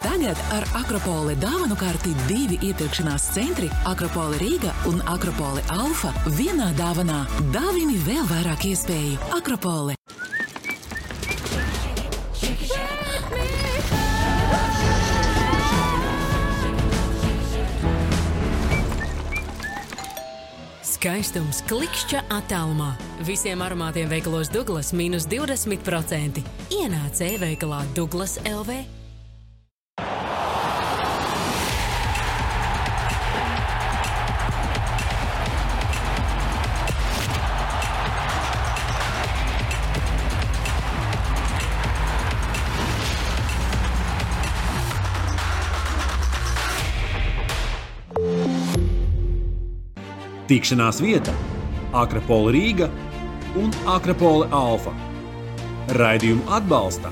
Tagad ar Akropole dāvanu karti 2 iepirkšanās centri Akropole Rīga un Akropole Alfa vienā dāvanā. Dāvini vēl vairāk iespēju. Akropole. Skaistums klikšķa attālumā. Visiem aromātiem veikalos Douglas mīnus 20%. Ienāc e-veikalā Douglas LV. Tikšanās vieta Akropole Rīga un Akropole Alfa. Raidījumu atbalsta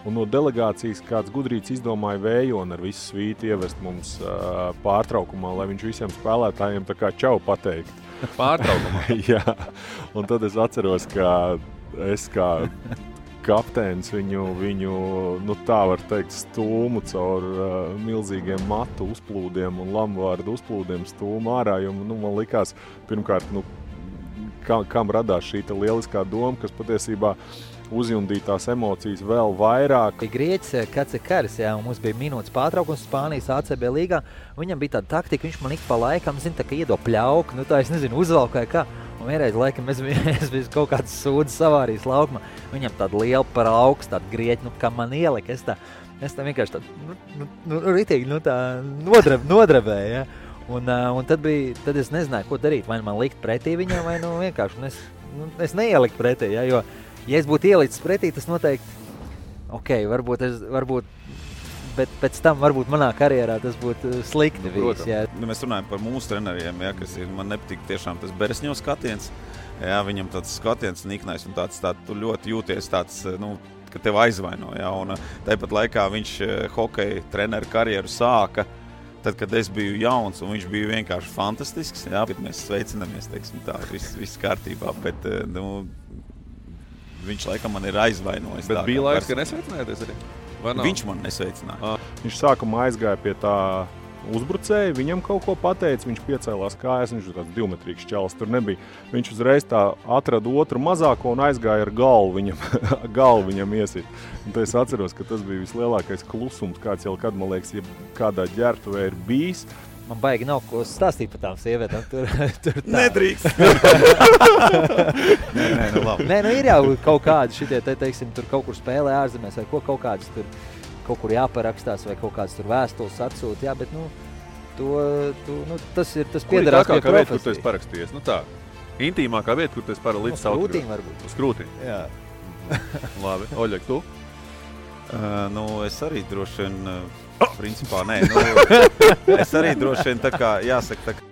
Un no delegācijas kāds gudrīts izdomāja vējoni ar visu svīti ievest mums pārtraukumā, lai viņš visiem spēlētājiem tā kā čau pateikt. Pārtraukumā? Jā, un tad es atceros, ka es kā kapteinis viņu nu tā var teikt, stūmu caur milzīgiem matu uzplūdiem un lamvārdu uzplūdiem stūmu ārā, jo man likās, pirmkārt, kam radās šī lieliskā doma, kas patiesībā uzjundītās emocijas vēl vairāk. Grieķis Kacekaris, jā, un mums bija minūtes pārtraukums Spānijas ACB līgā. Viņam bija tāda taktika, viņš man ik pa laikam, tā kā iedo pļauku, tā es nezinu, uzvalkāja kā. Un vienreiz laikam es biju kaut kāds sūdzes savārijas laukumā. Viņam tāda liela par augstu, tāda grieķi, kā man ielika. Es tā vienkārši ritīgi, tā nodrebēju, ja. Un tad es nezināju, ko darīt. Vai man likt pretī viņam, vai vienkārši. Es neieliku pretī, ja, jo ja es būtu ielicis pretī, tas noteikti, varbūt, bet pēc tam varbūt manā karjerā tas būtu slikti bijis. Jā. Mēs runājam par mūsu treneriem, ja, kas ir, man nepatīk tiešām tas Beresņo skatiens. Jā, viņam tāds skatiens niknais un tāds tu ļoti jūties tāds, ka tev aizvaino. Jā, un tāpat laikā viņš hokeja treneru karjeru sāka, tad, kad es biju jauns un viņš bija vienkārši fantastisks. Jā, bet mēs sveicinamies, teiksim tā, viss kārtībā, bet, viņš laikam man ir aizvainojis. Bet bija laiks, ka nesveicinājāties arī? Viņš man nesveicināja. Viņš sākumā aizgāja pie tā uzbrucēja, viņam kaut ko pateica, viņš piecēlās kājas, viņš ir tāds 2-metrīgs čalis, tur nebija. Viņš uzreiz tā atrada otru mazāko un aizgāja ar galvu viņam iesit. Un tad es atceros, ka tas bija vislielākais klusums, kāds jau kad, man liekas, ja kādā ģērbtuvē ir bijis. Man baigi nav ko stāstīt par tām sievietēm. Tur tā. Nedrīkst. Nē, labi. Nē, ir jau kaut kādi šitie, teiksim, tur kaut kur spēlē ārzemēs, vai kaut kādas tur kaut kur jāparakstās, vai kaut kādas tur vēstules atsūt, jā, bet, tas piederās pie profesijas. Vieta, kur tu esi parakstījies, tā, intīmākā vieta, kur tu esi līdz sautīm. Uz krūtīm varbūt. Uz krūtīm? Jā. Labi, Oļek, tu? Es arī droši vien, principā, nē, es arī droši vien tā kā, jāsaka, tā kā.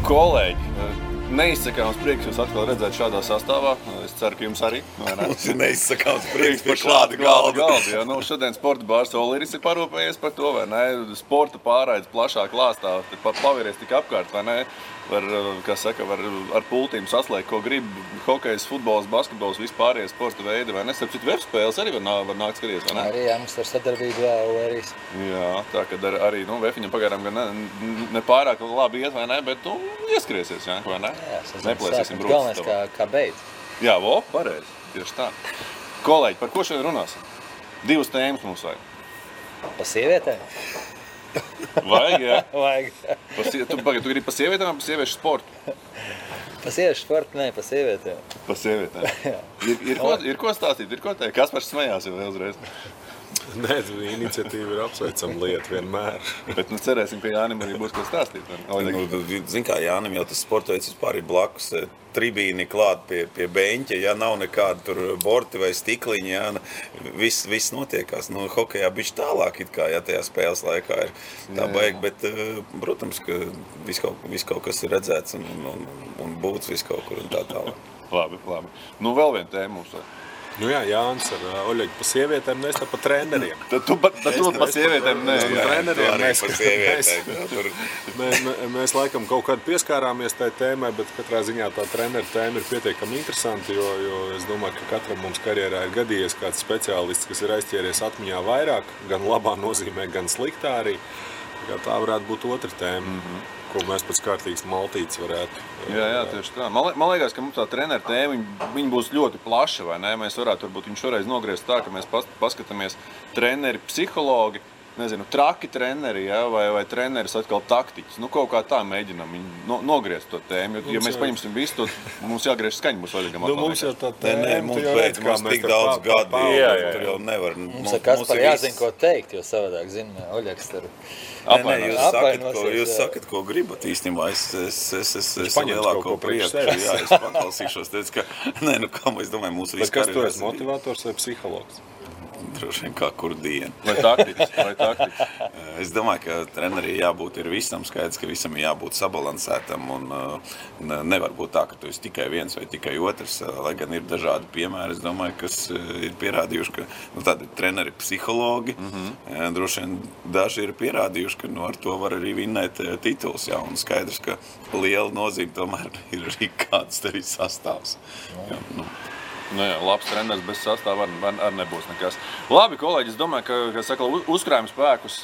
Kolēģi, neizsakāms prieks jūs atkal redzēt šādā sastāvā. Es ceru, ka jums arī. Mums ir neizsakāms prieks par šādu galdu. Ja, šodien sporta bārs Oliris ir parūpējies par to, vai ne? Sporta pārraides plašā klāstā, paviries tik apkārt, vai ne? Var ar pultīm saslēgt, ko grib hokejs, futbols, basketbols, vispārējie sporta veidi, vai ne? Starp citu, webspēles arī var nākt skaties, vai ne? Arī, jā, mums ar sadarbību Oliris. Jā, tā, kad arī, Vefiņam pagaidām gan ne pārāk labi iet, vai ne? Bet, ieskriesies, jā, vai ne? Jā, neplēsīsim brūcis. Galvenais, kā beidz. Jā, pareizi, tieši tā. Kolēģi, par ko šodien runāsim? 2 tēmas mums vajag. Pa sievietēm? Vajag, jā? Vajag. Tu gribi pa sievietēm vai pa sieviešu sportu? Pa sieviešu sportu, nē, pa sievietēm. Pa sievietēm. Ir ko stāstīt, ir ko teikt? Kaspars smējās jau uzreiz. Nē, iniciatīva ir apsveicama lieta vienmēr. Bet cerēsim, ka Jānim arī būs ko stāstīt. Zin kā, Jānim jau tas sportoveids vispār ir blakus tribīni klāt pie beņķa, ja nav nekāda tur borti vai stikliņi, ja, viss notiekās. Hokejā bišķi tālāk it kā, ja tajā spēles laikā ir tā baigi, bet, protams, ka viss kaut kas ir redzēts un būts viss kaut kur un tā tālāk. Labi. Vēl viena tēma mums. Jā, Jānis ar Oļegu pa sievietēm, mēs tā pa treneriem. Tad tu pa sievietēm ne. Mēs laikam kaut kādu pieskārāmies tai tēmai, bet katrā ziņā tā treneru tēma ir pietiekami interesanti, jo es domāju, ka katram mums karjerā ir gadījies kāds speciālists, kas ir aizķēries atmiņā vairāk, gan labā nozīmē, gan sliktā arī. Tā varētu būt otra tēma, ko mēs pēc kārtīgas maltītes varētu. Jā, tieši tā. Man liekas, ka mums tā treneru tēma, viņa būs ļoti plaša, vai ne? Mēs varētu varbūt viņu šoreiz nogriezt tā, ka mēs paskatāmies treneri, psihologi, nezinu, traki treneri, ja? vai treneris atkal taktiķis. Kaut kā tā mēģinam viņu nogriezt to tēmu. Ja mēs paņemsim visu to, mums jāgriež skaņa būs Oļegam. Mums jau tā tēma, mums tik daudz gadu, tur jau nevar. Mums ar Kasparu jāzina, ko teikt, jo savādāk, Oļegs tur Jūs sakat, ko gribat īstenībā. Es lielāko prieku. Jā, es paklausīšos. Es domāju, mūsu visu kas tu esi, motivators vai psihologs? Droši vien kā kur dienu. Vai taktiķis? Es domāju, ka trenerī jābūt ir visam skaidrs, ka visam ir jābūt sabalansētam un nevar būt tā, ka tu esi tikai viens vai tikai otrs, lai gan ir dažādi piemēri, es domāju, kas ir pierādījuši, ka tādi treneri psihologi, droši vien daži ir pierādījuši, ka ar to var arī vinnēt tituls, jā, un skaidrs, ka liela nozīme tomēr ir arī kāds tevi sastāvs. Jā, labs treneris bez sastāva arī nebūs nekas. Labi, kolēģi, es domāju, ka saka, uzkrājam spēkus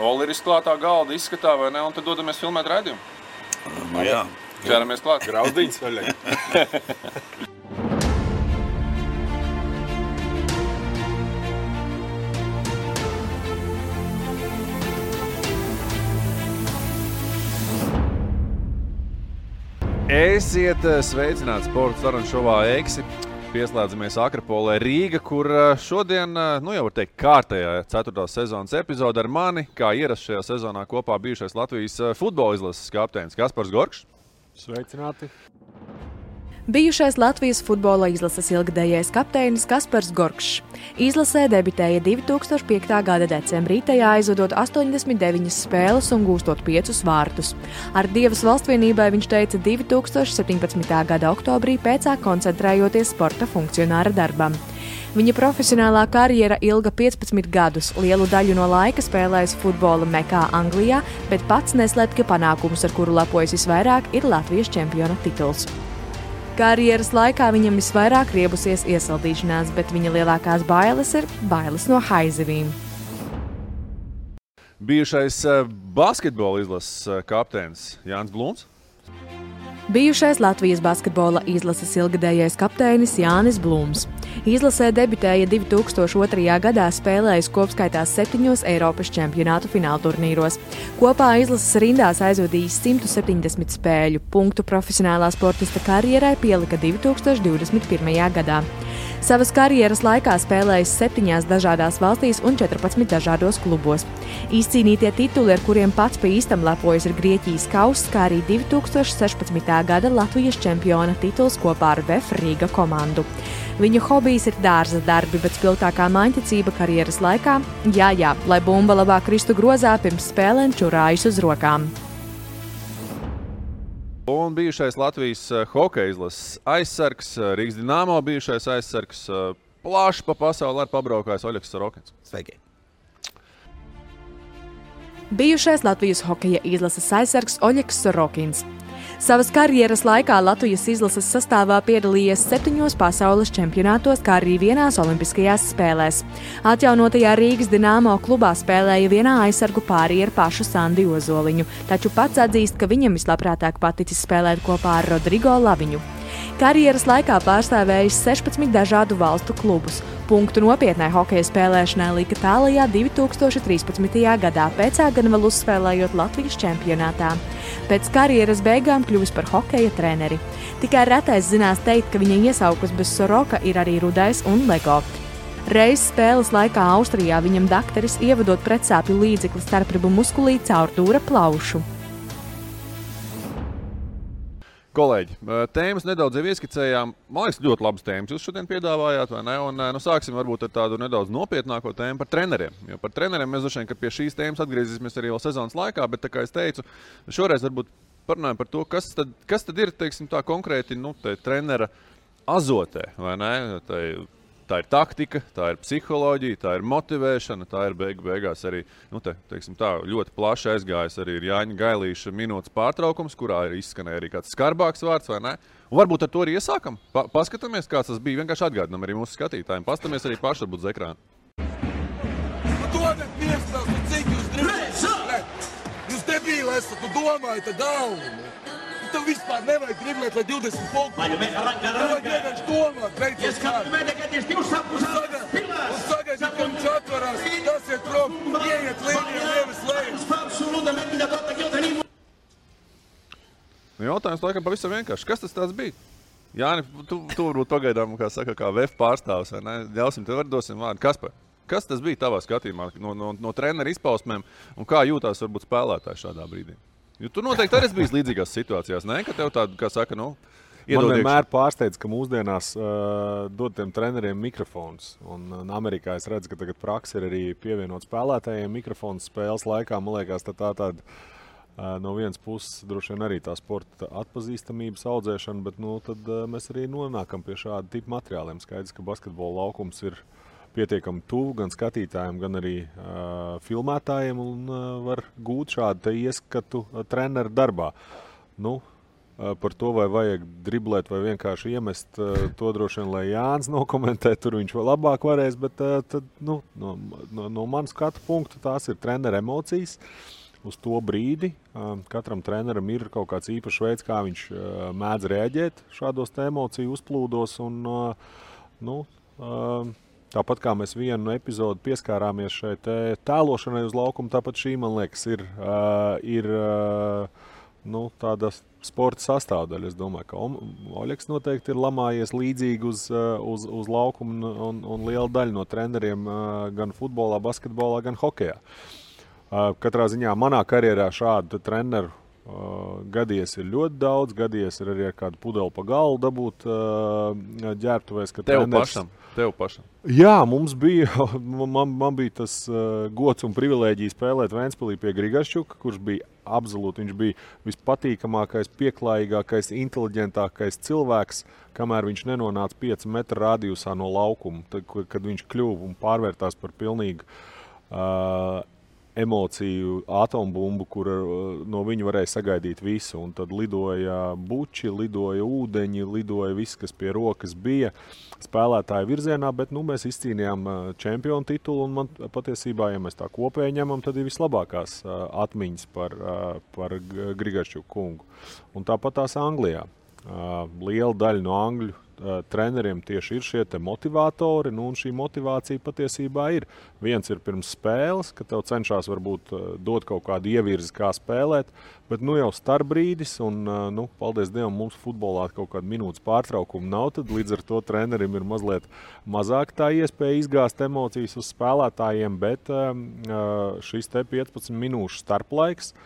Oliris klātā galda izskatā, vai ne, un tad dodamies filmēt raidījumu. Jā. Ķeramies klāt. Grauzdiņas vaļai. Esiet sveicināti sporta sarunu šovā Eksi. Pieslēdzamies Akropolē Rīga, kur šodien, jau var teikt, kārtējā 4. sezonas epizode ar mani, kā ierasts šajā sezonā kopā bijušais Latvijas futbola izlases kapteinis Kaspars Gorkšs. Sveicināti. Bijušais Latvijas futbola izlases ilgadējais kapteinis Kaspars Gorkšs. Izlasē debitēja 2005. gada decembrī, tajā aizvadot 89 spēles un gūstot 5 vārtus. Ar Dievas valstvienībai viņš teica 2017. gada oktobrī, pēcāk koncentrējoties sporta funkcionāra darbam. Viņa profesionālā karjera ilga 15 gadus, lielu daļu no laika spēlējis futbola Mekā Anglijā, bet pats neslēp, ka panākums, ar kuru lepojas visvairāk, ir Latvijas čempiona tituls. Karjeras laikā viņam visvairāk riebusies iesaldīšanās, bet viņa lielākās bailes ir bailes no haizivīm. Bijušais basketbola izlases kapteinis Jānis Blūms. Bijušais Latvijas basketbola izlases ilgadējais kapteinis Jānis Blūms. Izlasē debitēja 2002. gadā, spēlējis kopskaitā 7 Eiropas čempionātu finālturnīros. Kopā izlases rindās aizvadījis 170 spēļu. Punktu profesionālā sportista karjerai pielika 2021. gadā. Savas karjeras laikā spēlējis 7 dažādās valstīs un 14 dažādos klubos. Izcīnītie tituli, ar kuriem pats pa īstam lepojas, ir Grieķijas kauss, kā arī 2016. gada Latvijas čempiona tituls kopā ar VF Rīga komandu. Viņa hobijs ir dārza darbi, bet spilgtākā maņticība karjeras laikā - jā, lai bumba labāk kristu grozā, pirms spēlēm čurājas uz rokām. Un bijušais Latvijas hokeja izlases aizsargs, Rīgas Dinamo bijušais aizsargs, plaši pa pasauli ar pabraukājis Oļegs Sorokins. Sveiki! Bijušais Latvijas hokeja izlases aizsargs Oļegs Sorokins. Savas karjeras laikā Latvijas izlases sastāvā piedalījies 7 pasaules čempionātos, kā arī vienās olimpiskajās spēlēs. Atjaunotajā Rīgas Dinamo klubā spēlēja vienā aizsargu pārī ar pašu Sandi Ozoliņu, taču pats atzīst, ka viņam vislabprātāk paticis spēlēt kopā ar Rodrigo Laviņu. Karjeras laikā pārstāvējis 16 dažādu valstu klubus. Punktu nopietnai hokeja spēlēšanai lika tālajā 2013. gadā, pēcāk gan vēl uzspēlējot Latvijas čempionātā. Pēc karjeras beigām kļuvis par hokeja treneri. Tikai retais zinās teikt, ka viņa iesaukus bez Soroka ir arī Rudais un Lego. Reiz spēles laikā Austrijā viņam dakteris ievadot pretsāpju līdzekli starpribu muskulī caur dūra plaušu. Kolēģi, tēmas nedaudz jau ieskicējām. Man liekas, ļoti labas tēmas jūs šodien piedāvājāt, vai ne? Un sāksim varbūt ar tādu nedaudz nopietnāko tēmu par treneriem. Jo par treneriem mēs droši vien, ka pie šīs tēmas atgriezīsimies arī vēl sezonas laikā, bet, tā kā es teicu, šoreiz varbūt parunājam par to, kas tad ir, teiksim, tā konkrēti, trenera azotē, vai ne? Tā ir taktika, tā ir psiholoģija, tā ir motivēšana, tā ir beigās arī, teiksim tā, ļoti plaši aizgājis arī ir Jāņa Gailīša minūtes pārtraukums, kurā ir izskanēja arī kāds skarbāks vārds, vai ne? Un varbūt ar to arī iesākam. Paskatāmies, kāds tas bija, vienkārši atgādinam arī mūsu skatītājiem. Paskatāmies arī paši varbūt uz ekrānu. Dodat miestās, cik jūs driblēt? Jūs debīli esat, tu domājat ar galvu. Tev vispār nevajag driblēt, lai 20 punktu. Nevajag vienkārši domāt, beidzot kādu. Un sagaidīt, ka viņš atvarās, tas ir prom, ieiet līniju, nevis lejus. Jautājums laikam pavisam vienkārši. Kas tas tāds bija? Jāni, tu varbūt pagaidām, kā VF pārstāvs, vai ne? Ļausim tev dosim vārdu. Kaspar, kas tas bija tavā skatījumā no trenera izpausmēm un kā jūtās varbūt spēlētāji šādā brīdī? Jo tu noteikti arī bijis līdzīgās situācijās, ne? Ka tev tādu, iedod Man vienmēr pārsteidz, ka mūsdienās dod tiem treneriem mikrofons. Un Amerikā es redzu, ka tagad praksa ir arī pievienot spēlētājiem mikrofons spēles laikā. Man liekas, tāda no vienas puses droši vien arī tā sporta atpazīstamības audzēšana, bet tad mēs arī nonākam pie šāda tipa materiāliem. Skaidrs, ka basketbola laukums ir pietiekami tuvu gan skatītājiem, gan arī filmētājiem un var gūt šādu ieskatu treneru darbā. Par to, vai vajag driblēt vai vienkārši iemest, to droši vien, lai Jānis nokomentē, tur viņš vēl labāk varēs, bet no manas skatu punktu tās ir treneru emocijas uz to brīdi. Katram treneram ir kaut kāds īpašs veids, kā viņš mēdz reaģēt šādos emociju uzplūdos un, tāpat kā mēs vienu epizodu pieskārāmies šai tēlošanai uz laukumu, tāpat šī, man liekas, ir tāda sporta sastāvdaļa. Es domāju, ka Oļegs noteikti ir lamājies līdzīgi uz laukumu un liela daļa no treneriem gan futbolā, basketbolā, gan hokejā. Katrā ziņā manā karjerā šādu treneru gadies ir ļoti daudz, gadies ir arī ar kādu pudeli pa galvu dabūt ģērbtuvēs. Tev pašam? Jā, mums bija, man bija tas gods un privilēģija spēlēt Ventspilī pie Grigašķuka, kurš bija absolūti, viņš bija vispatīkamākais, pieklājīgākais, inteliģentākais cilvēks, kamēr viņš nenonāca 5 metru radiusā no laukuma, kad viņš kļuva un pārvērtās par pilnīgu emociju atombumbu, kur no viņa varēja sagaidīt visu. Un tad lidoja buči, lidoja ūdeņi, lidoja viss, kas pie rokas bija spēlētāju virzienā, bet mēs izcīnījām čempionu titulu, un man patiesībā, ja mēs tā kopēji ņemam, tad ir vislabākās atmiņas par Grigašķuku kungu. Un tāpat tās Anglijā. Liela daļa no angļu treneriem tieši ir šie te motivatori, un šī motivācija patiesībā ir. Viens ir pirms spēles, ka tev cenšās varbūt dot kaut kādu ievirzi, kā spēlēt, bet jau starpbrīdis, un paldies Dievam, mums futbolā kaut kāda minūtes pārtraukuma nav, tad līdz ar to trenerim ir mazliet mazāk tā iespēja izgāzt emocijas uz spēlētājiem, bet šis te 15 minūšu starplaiks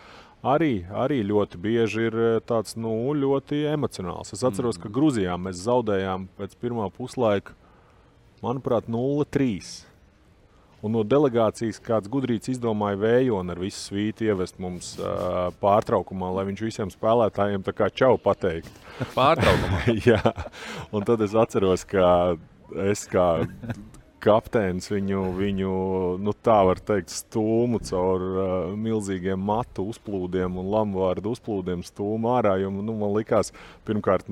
arī ļoti bieži ir tāds, ļoti emocionāls. Es atceros, ka Gruzijā mēs zaudējām pēc pirmā puslaika, manuprāt, 0-3. Un no delegācijas kāds gudrīts izdomāja Vējoni ar visu svīti ievest mums pārtraukumā, lai viņš visiem spēlētājiem tā kā čau pateikt. Pārtraukumā? Jā. Un tad es atceros, ka es kā kapteinis viņu tā var teikt, stūmu caur milzīgiem matu uzplūdiem un lamvārdu uzplūdiem stūmu ārā, jo man likās, pirmkārt,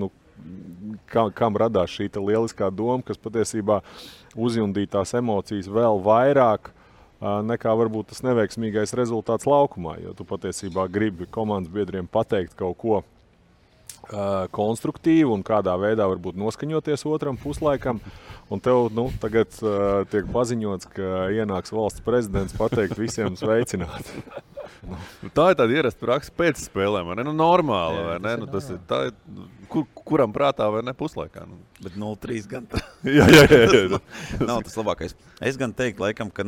kam radās šī lieliskā doma, kas patiesībā uzjundīja tās emocijas vēl vairāk nekā varbūt tas neveiksmīgais rezultāts laukumā, jo tu patiesībā gribi komandas biedriem pateikt kaut ko konstruktīvu un kādā veidā varbūt noskaņoties otram puslaikam. Un tev tagad tiek paziņots, ka ienāks valsts prezidents pateikt visiem sveicināt. Tā ir tāda ierasta praksa pēc spēlēm, vai ne? Normāla, vai ne? Tas ir tā, kuram prātā vai ne puslaikā. Nu. Bet 0-3 gan. jā. Nav tas labākais. Es gan teiktu, laikam, ka,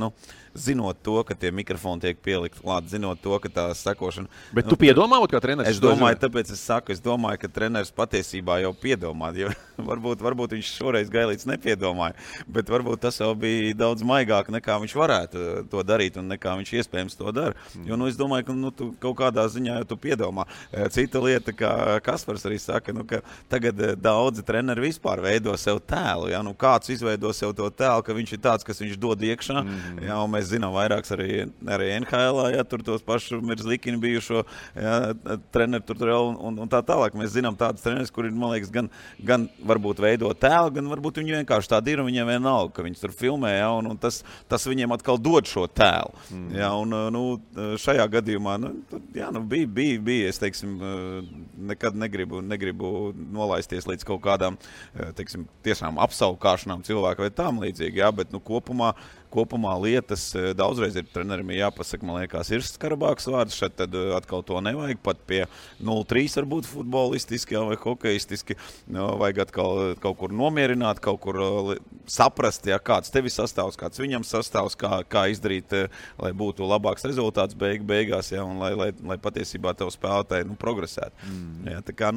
zinot to, ka tie mikrofoni tiek pielikt klāt, zinot to, ka tā sekošana... Bet tu piedomā, kā treneris? Es domāju, tāpēc es domāju, ka treneris patiesībā jau piedomā, jo varbūt viņš šoreiz Gailīts nepiedomāja, bet varbūt tas jau bija daudz maigāk, nekā viņš varētu to darīt un nekā viņš iespējams to dara. Jo, es domāju, ka tu kaut kādā ziņā tu piedomā. Cita lieta, kā Kaspars arī saka, ka tagad daudzi treneri vispār veido sev tēlu. Ja? Kāds izveido sev to tēlu, ka viņš ir tāds, kas viņš dod iekšā. Ja? Un mēs zinām vairāks arī NHL, ja? Tur tos pašu Mirzlikini bijušo treneri tur un tā tālāk. Mēs zinām tādus treneris, kuri, man liekas, gan varbūt veido tēlu, gan varbūt viņi vienkārši tādi ir un viņiem vienalga, ka viņi tur filmē, ja? Un tas viņiem atkal dod šo tēlu. Ja? Un, šajā gadījumā bija, es teiksim, nekad negribu nolaisties līdz kaut kādām, teiksim, tiešām apsaukāšanām cilvēku vai tām līdzīgi, jā, bet kopumā lietas daudzreiz ir trenerim jāpasaka, man liekas, ir skarabāks vārds, šeit tad atkal to nevajag, pat pie 0-3 varbūt futbolistiski vai hokeistiski, vajag atkal kaut kur nomierināt, kaut kur saprast, ja, kāds tevi sastāvs, kāds viņam sastāvs, kā izdarīt, lai būtu labāks rezultāts beigās, ja, un lai patiesībā tev spēlētāji progresētu. Ja, tā kā,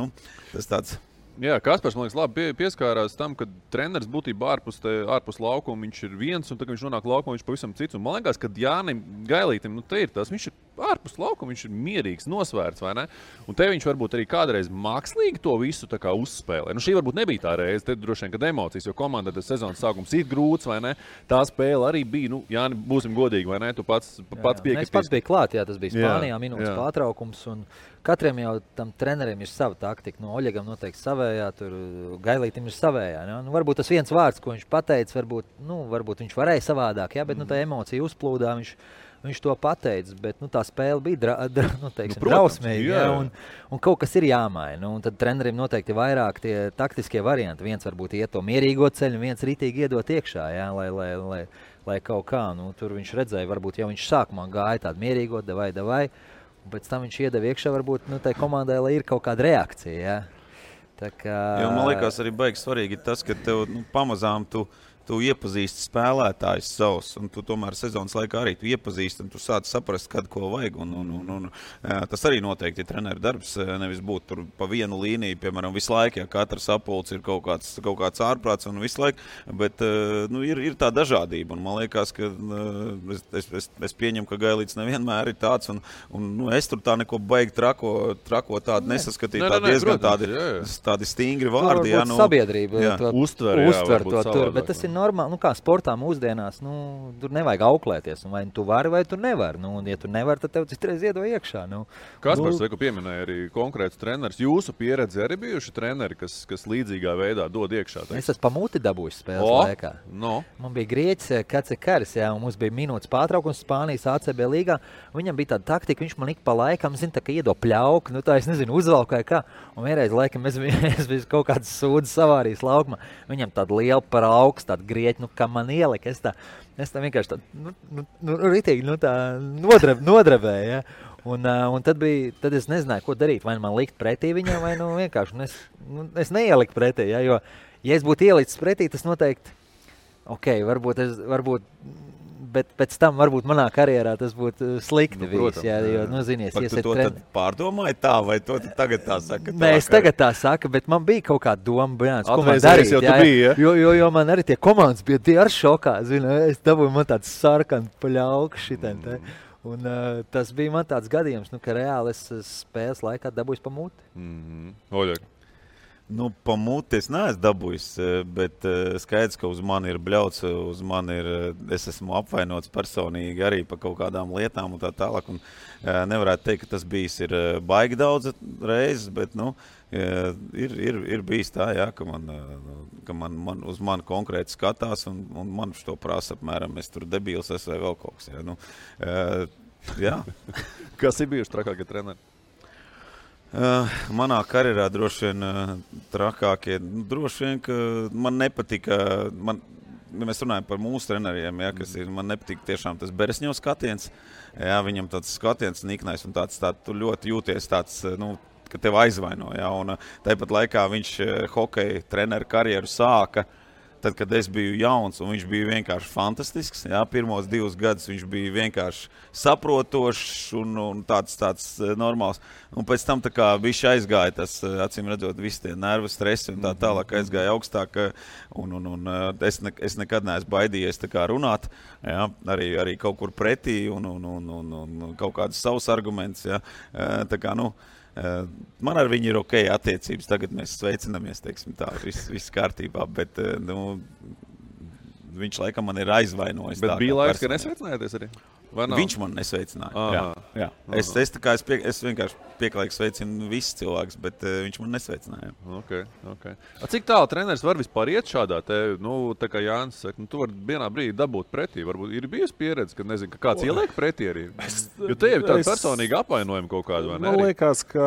tas tāds... Jā, Kaspars, man liekas, labi pieskārās tam, ka treneris būtībā ārpus laukuma viņš ir viens, un tad, kad viņš nonāk laukumā, viņš pavisam cits. Un man liekas, ka Jānim Gailītim, te ir tas, viņš ir ārpus laukuma, viņš ir mierīgs, nosvērts, vai ne? Un te viņš varbūt arī kādreiz mākslīgi to visu tā kā uzspēlē. Šī varbūt nebija tā reize, te droši vien, kad emocijas, jo komanda tas sezonas sākums ir grūts, vai ne? Tā spēle arī bija, Jāni, būsim godīgi, vai ne? Tu pats piekritīs. Es pats biju klāt, jā, tas bija Spānijā, minūtes pārtraukums, un katram jau tam trenerim ir sava taktika. Oļegam noteikti savējā, tur Gailītim ir savējā. Ja? Varbūt tas viens vārds, ko viņš pateica, varbūt viņš varēja savādāk, ja? Bet tā emocija uzplūdā, viņš to pateica, bet tā spēle bija drausmīga, ja? Un kaut kas ir jāmaina. Un tad trenerim noteikti vairāk tie taktiskie varianti. Viens varbūt iet to mierīgo ceļu, viens ritīgi iedot iekšā, ja? Lai kaut kā. Tur viņš redzēja, varbūt jau viņš sākumā gāja tādu mierīgo, davai. Un pēc tam viņš iedeva iekšā, varbūt tai komandai, lai ir kaut kāda reakcija. Ja? Tā kā... Jo, man liekas, arī baigi svarīgi tas, ka tev pamazām tu iepazīsti spēlētājus savus, un tu tomēr sezonas laikā arī tu iepazīsti, un tu sāc saprast, kad ko vajag. Un tas arī noteikti ir treneru darbs, nevis būt tur pa vienu līniju, piemēram, visu laiku, ja katrs apulcs ir kaut kāds ārprāts un visu laiku, bet ir tā dažādība, un man liekas, ka es pieņemu, ka Gailīts nevienmēr ir tāds, un es tur tā neko baigi trako tādu nesaskatīju, tā diezgan tādi stingri vārdi. Sabiedrība uztver to tur, bet tas ir normāli, kā sportā mūsdienās, tur nevajag auklēties, vai tu vari, vai tu nevari. Un ja tu nevari, tad tev citreiz iedo iekšā. Kaspars, ko pieminēja arī konkrēts treneris. Jūsu pieredze arī bijuši treneri, kas līdzīgā veidā dod iekšā? Es esmu pa muti dabūjis spēles laikā. Man bija Grieķis Kacekaris, un mums bija minūtes pārtraukums Spānijas ACB līgā. Viņam bija tāda taktika, viņš man ik pa laikam, tā kā iedo pļauku, tā es nezinu, uzvalku vai kā. Un vienreiz laikam es biju kaut kāds sūdzes savārījis laukumā. Viņam tāda liela par augstu, tāda Grieķi, kā man ielika, es tā vienkārši ritīgi, nodrevēju, ja? Un tad es nezināju, ko darīt, vai man likt pretī viņam, vai vienkārši, es neieliku pretī, ja? Jo, ja es būtu ielicis pretī, tas noteikti, varbūt, bet pēc tam varbūt manā karjerā tas būtu slikti viss, ja? Jo, zinies, tu to tad pārdomāji tā, vai to tagad tā saka? Nē, es tagad tā saku, bet man bija kaut kāda doma, ko man darīt, ja? Jo man arī tie komandas bija tie ar šokā, es dabūju man tāds sarkanu paļauku šitien, un tas bija man tāds gadījums, ka reāli es spēles laikā dabūju pa muti. Oļeg. Pa muti es neesmu dabūjis, bet skaidrs, ka uz mani ir bļauts, es esmu apvainots personīgi arī par kaut kādām lietām un tā tālāk. Un nevarētu teikt, ka tas bijis ir baigi daudz reizes, bet ir bijis tā, jā, ka man uz mani konkrēti skatās un man to prasa apmēram, es tur debīls esmu vai vēl kaut kas. Jā. Kas ir bijuši trakākie treneri? Manā karjerā droši vien trakākie, droši vien, ka man nepatika, mēs runājam par mūsu treneriem, ja, kas ir, man nepatika tiešām tas Beresņo skatiens, ja, viņam tāds skatiens niknais un tāds tu ļoti jūties tāds, ka tev aizvaino. Ja? Un tāpat laikā viņš hokeja treneru karjeru sāka, tad, kad es biju jauns, un viņš bija vienkārši fantastisks. Ja? Pirmos 2 gadus viņš bija vienkārši saprotošs un tāds normāls. Un pēc tam tā kā viņš aizgāja tas, acīm redzot, visi tie nervu stresi un tā tālāk aizgāja augstāk. Un es nekad neesmu baidījies tā kā runāt, ja? Arī kaut kur pretī un kaut kādus savus argumentus. Ja? Tā kā, man ar viņu ir ok attiecības, tagad mēs sveicinamies, teiksim tā, viss kārtībā, bet viņš laikam man ir aizvainojis. Bet bija laiks, ka nesveicinājāties arī? Viņš man nesveicināja. Jā. Es vienkārši pieklājīgi sveicinu visus cilvēkus, bet viņš man nesveicināja. Okay. Cik tālu treneris var vispār iet šādā te, tā kā Jānis saka, tu vari vienā brīdī dabūt pretī, varbūt ir bijusi pieredze, ka nezinu, ka kāds ieliek pretī arī. Jo te jau tāda personīga apvainojuma kaut kāda, vai ne? Man liekas, ka,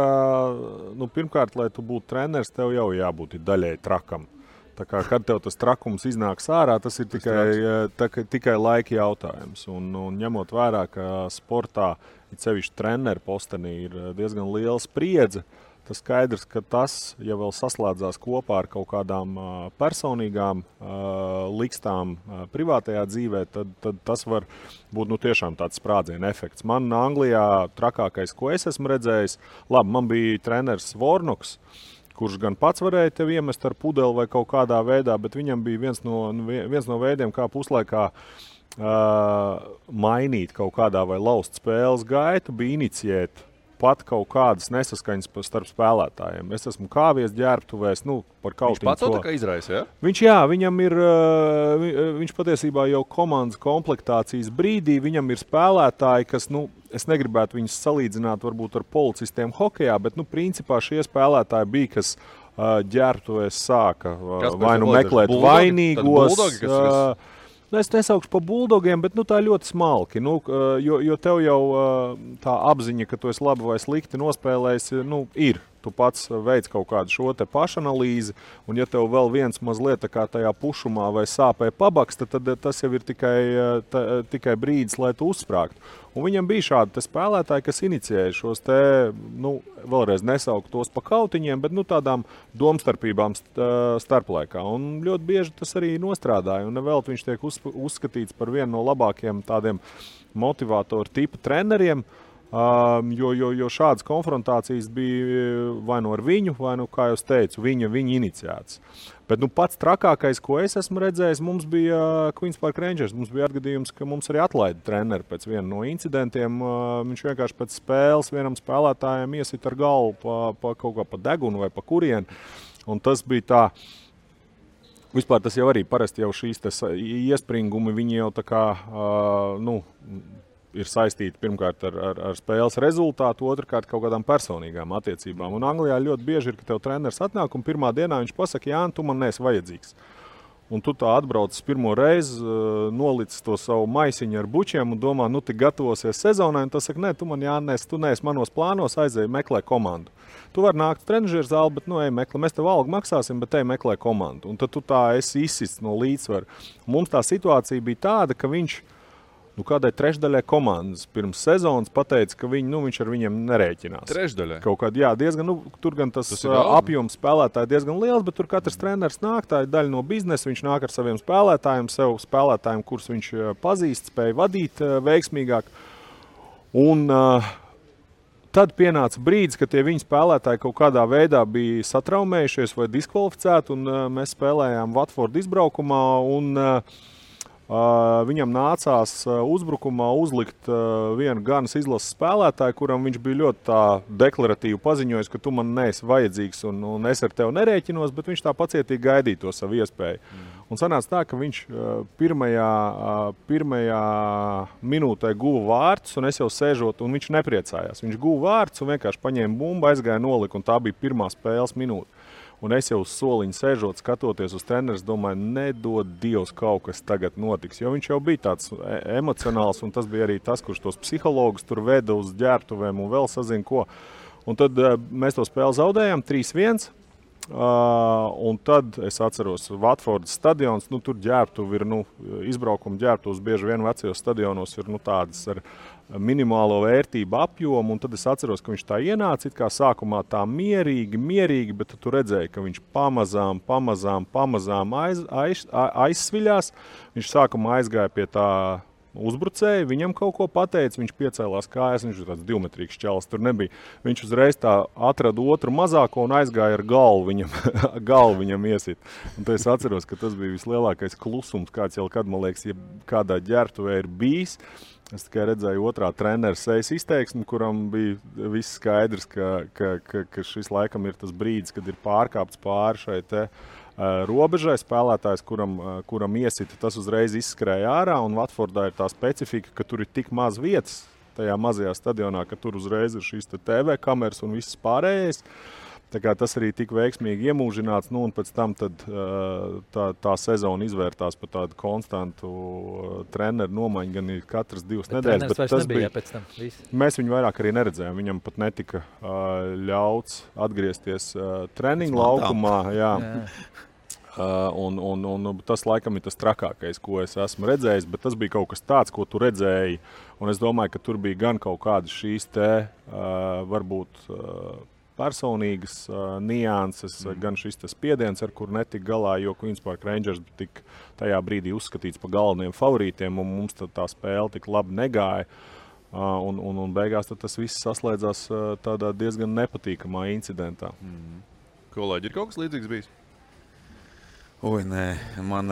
pirmkārt, lai tu būtu treneris, tev jau jābūt daļai trakam. Tā kā, kad tev tas trakums iznāks ārā, tas ir tikai laika jautājums. Un ņemot vērā, ka sportā, it sevišķi treneru postenī, ir diezgan liela spriedze, tas skaidrs, ka tas, ja vēl saslēdzās kopā ar kaut kādām personīgām likstām privātajā dzīvē, tad tas var būt tiešām tāds sprādziena efekts. Man Anglijā trakākais, ko es esmu redzējis, man bija treneris Vornoks, kurš gan pats varēja tev iemest ar pudeli vai kaut kādā veidā, bet viņam bija viens no veidiem, kā puslaikā mainīt kaut kādā vai laust spēles gaitu, bija iniciēt pat kaut kādas nesaskaņas starp spēlētājiem. Es esmu kāvies ģērbtuvēs, par kaut viņš pats to tā kā izraisa, ja? Viņš patiesībā jau komandas komplektācijas brīdī, viņam ir spēlētāji, kas, es negribētu viņus salīdzināt varbūt ar policistiem hokejā, bet, principā šie spēlētāji bija, kas ģērbtuvēs sāka vai meklēt vainīgos. Es nesaukšu par buldogiem, bet tā ļoti smalki, jo tev jau tā apziņa, ka tu esi labi vai slikti nospēlējis, ir. Tu pats veic kaut kādu šo te pašanalīzi, un ja tev vēl viens mazliet tā kā tajā pušumā vai sāpē pabaksta, tad tas jau ir tikai brīdis, lai tu uzsprāgtu. Un viņam bija šādi spēlētāji, kas inicijēja šos te, vēlreiz nesaukt tos pa kautiņiem, bet tādām domstarpībām starplaikā. Un ļoti bieži tas arī nostrādāja, un nevēl viņš tiek uzskatīts par vienu no labākiem tādiem motivātoru tipa treneriem, jo šādas konfrontācijas bija vai ar viņu, vai kā jau teicu, viņa iniciēts. Bet pats trakākais, ko es esmu redzējis, mums bija Queens Park Rangers. Mums bija atgadījums, ka mums arī atlaida treneri pēc viena no incidentiem. Viņš vienkārši pēc spēles vienam spēlētājiem iesit ar galvu kaut kā pa degunu vai pa kurienu. Un tas bija tā. Vispār tas jau arī parasti jau šīs iespringumi, viņi jau tā kā, ir saistīti pirmkārt ar spēles rezultātu, otrkārt kaut kādām personīgām attiecībām. Un Anglijā ļoti bieži ir, ka tev treneris atnāk un pirmā dienā viņš pasaka, Jāni, tu man neesi vajadzīgs. Un tu tā atbrauc pirmo reizi, nolicis to savu maisiņu ar bučiem un domā, tu gatavosies sezonai, un tas saka, nē, tu man Jānis, tu neesi manos plānos, aizēji meklē komandu. Tu vari nākt trenižera zāli, bet ej meklē, mēs tev algu maksāsim, bet ej meklē komandu. Un tad tu tā esi izsists no līdzsvaru. Mums tā situācija bija tāda, ka viņš kādai trešdaļai komandas pirms sezonas pateica, ka viņš ar viņiem nerēķinās. Trešdaļai? Kaut kādā, diezgan, tur gan tas apjoms spēlētāji diezgan liels, bet tur katrs treneris nāk, tā ir daļa no biznesa, viņš nāk ar saviem spēlētājiem, kurus viņš pazīst, spēja vadīt veiksmīgāk. Un tad pienāca brīdis, ka tie viņa spēlētāji kaut kādā veidā bija satraumējušies vai diskvalificēti, un mēs spēlējām Watford izbraukumā, un viņam nācās uzbrukumā uzlikt vienu ganas izlases spēlētāju, kuram viņš bija ļoti tā deklaratīvi paziņojis, ka tu man neesi vajadzīgs un es ar tevi nerēķinos, bet viņš tā pacietīgi gaidīja to savu iespēju. Un sanāca tā, ka viņš pirmajā minūtē guva vārtus, un es jau sēžot, un viņš nepriecājās. Viņš guva vārtus un vienkārši paņēma bumbu, aizgāja nolika, un tā bija pirmā spēles minūte. Un es jau uz soliņa sēžot, skatoties uz treneris, domāju, nedod Dievs, kaut kas tagad notiks. Jo viņš jau bija tāds emocionāls, un tas bija arī tas, kurš tos psihologus tur veda uz ģērbtuvēm un vēl sazina ko. Un tad mēs to spēli zaudējām 3-1. Un tad es atceros Watfordas stadions, tur ģērbtuvi ir, izbraukuma ģērbtuvs bieži vien vecajos stadionos ir tādas ar minimālo vērtību apjomu, un tad es atceros, ka viņš tā ienāca it kā sākumā tā mierīgi, bet tu redzēji, ka viņš pamazām aizsviļās. Viņš sākumā aizgāja pie tā uzbrucēji, viņam kaut ko pateica, viņš piecēlās kājas, viņš ir tāds divmetrīgs čalis, tur nebija. Viņš uzreiz tā atrada otru mazāko un aizgāja ar galvu viņam iesit. Un tad es atceros, ka tas bija vislielākais klusums, kāds jau kad, man liekas, ja kādā ģērbtuvē ir bijis. Es tikai redzēju otrā trenera sejas izteiksmi, kuram bija viss skaidrs, ka šis laikam ir tas brīdis, kad ir pārkāpts pāri šai te robežai spēlētājs, kuram iesita, tas uzreiz izskrēja ārā, un Watfordā ir tā specifika, ka tur ir tik maz vietas tajā mazajā stadionā, ka tur uzreiz ir šīs TV kameras un viss pārējais. Tā kā tas arī tik veiksmīgi iemūžināts, un pēc tam tad, tā sezona izvērtās par tādu konstantu treneru nomaiņu, gan ir katras 2 nedēļas. Bet tas bija pēc tam viss. Mēs viņu vairāk arī neredzējām. Viņam pat netika ļauts atgriezties treniņu laukumā. Jā. Un tas laikam ir tas trakākais, ko es esmu redzējis, bet tas bija kaut kas tāds, ko tu redzēji. Un es domāju, ka tur bija gan kaut kādas šīs varbūt personīgas nianses, gan šis spiediens, ar kur netika galā, jo Queen's Park Rangers tika tajā brīdī uzskatīts par galveniem favorītiem, un mums tā spēle tik labi negāja. Un beigās tas viss saslēdzās tādā diezgan nepatīkamā incidentā. Kolēģi, ir kaut kas līdzīgs bijis? Nē, man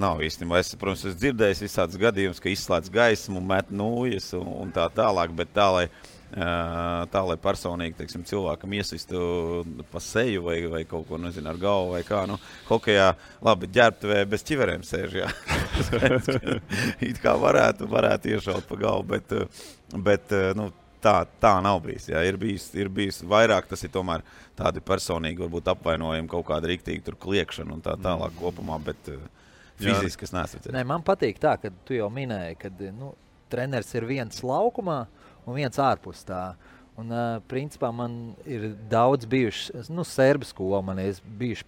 nav īstenībā. Es, protams, esmu dzirdējis visādus gadījumus, ka izslēdz gaismu, met nūjas un tā tālāk, bet tā, lai personīgi, teiksim, cilvēkam iesistu pa seju vai kaut ko, nezinu, ar galvu vai kā, hokejā, labi, ģērbtuvē bez ķiverēm sēž, jā. It kā varētu iešaut pa galvu, bet tā nav bijis, jā. Ir bijis vairāk, tas ir tomēr tādi personīgi, varbūt apvainojumi, kaut kāda riktīgi tur kliekšana un tā tālāk kopumā, bet fiziski es neesmu redzējis. Nē, man patīk tā, ka tu jau minēji, ka treneris ir viens laukumā un viens ārpus tā. Un, principā, man ir daudz bijuši, serbu skola, man ir bijis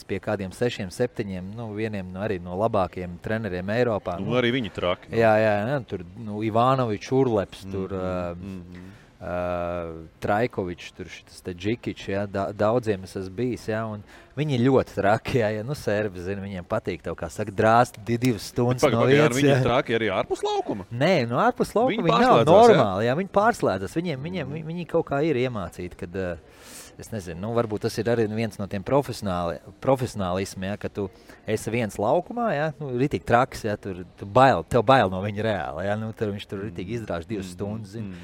pie kādiem 6, 7, vieniem arī no labākiem treneriem Eiropā. Arī viņi traki. Jā, tur Ivanovičs, Urleps, tur Trajkovičs, tur šitas te Džikičs, jā, daudziem es esmu bijis, jā, un viņi ir ļoti traki, jā, serbi, zina, viņiem patīk tev, kā saka, drāst 2 stundas no vietas. Viņi ir traki arī ārpus laukuma? Nē, ārpus laukuma viņi nav normāli, jā, viņi pārslēdzas, viņi kaut kā ir iemācīti, kad, es nezinu, varbūt tas ir arī viens no tiem profesionālismiem, ja, ka tu esi viens laukumā, ja, ritīgi traks, ja, tev bail no viņa reāli, ja, viņš tur ritīgi izdrāž 2 stundas, zini,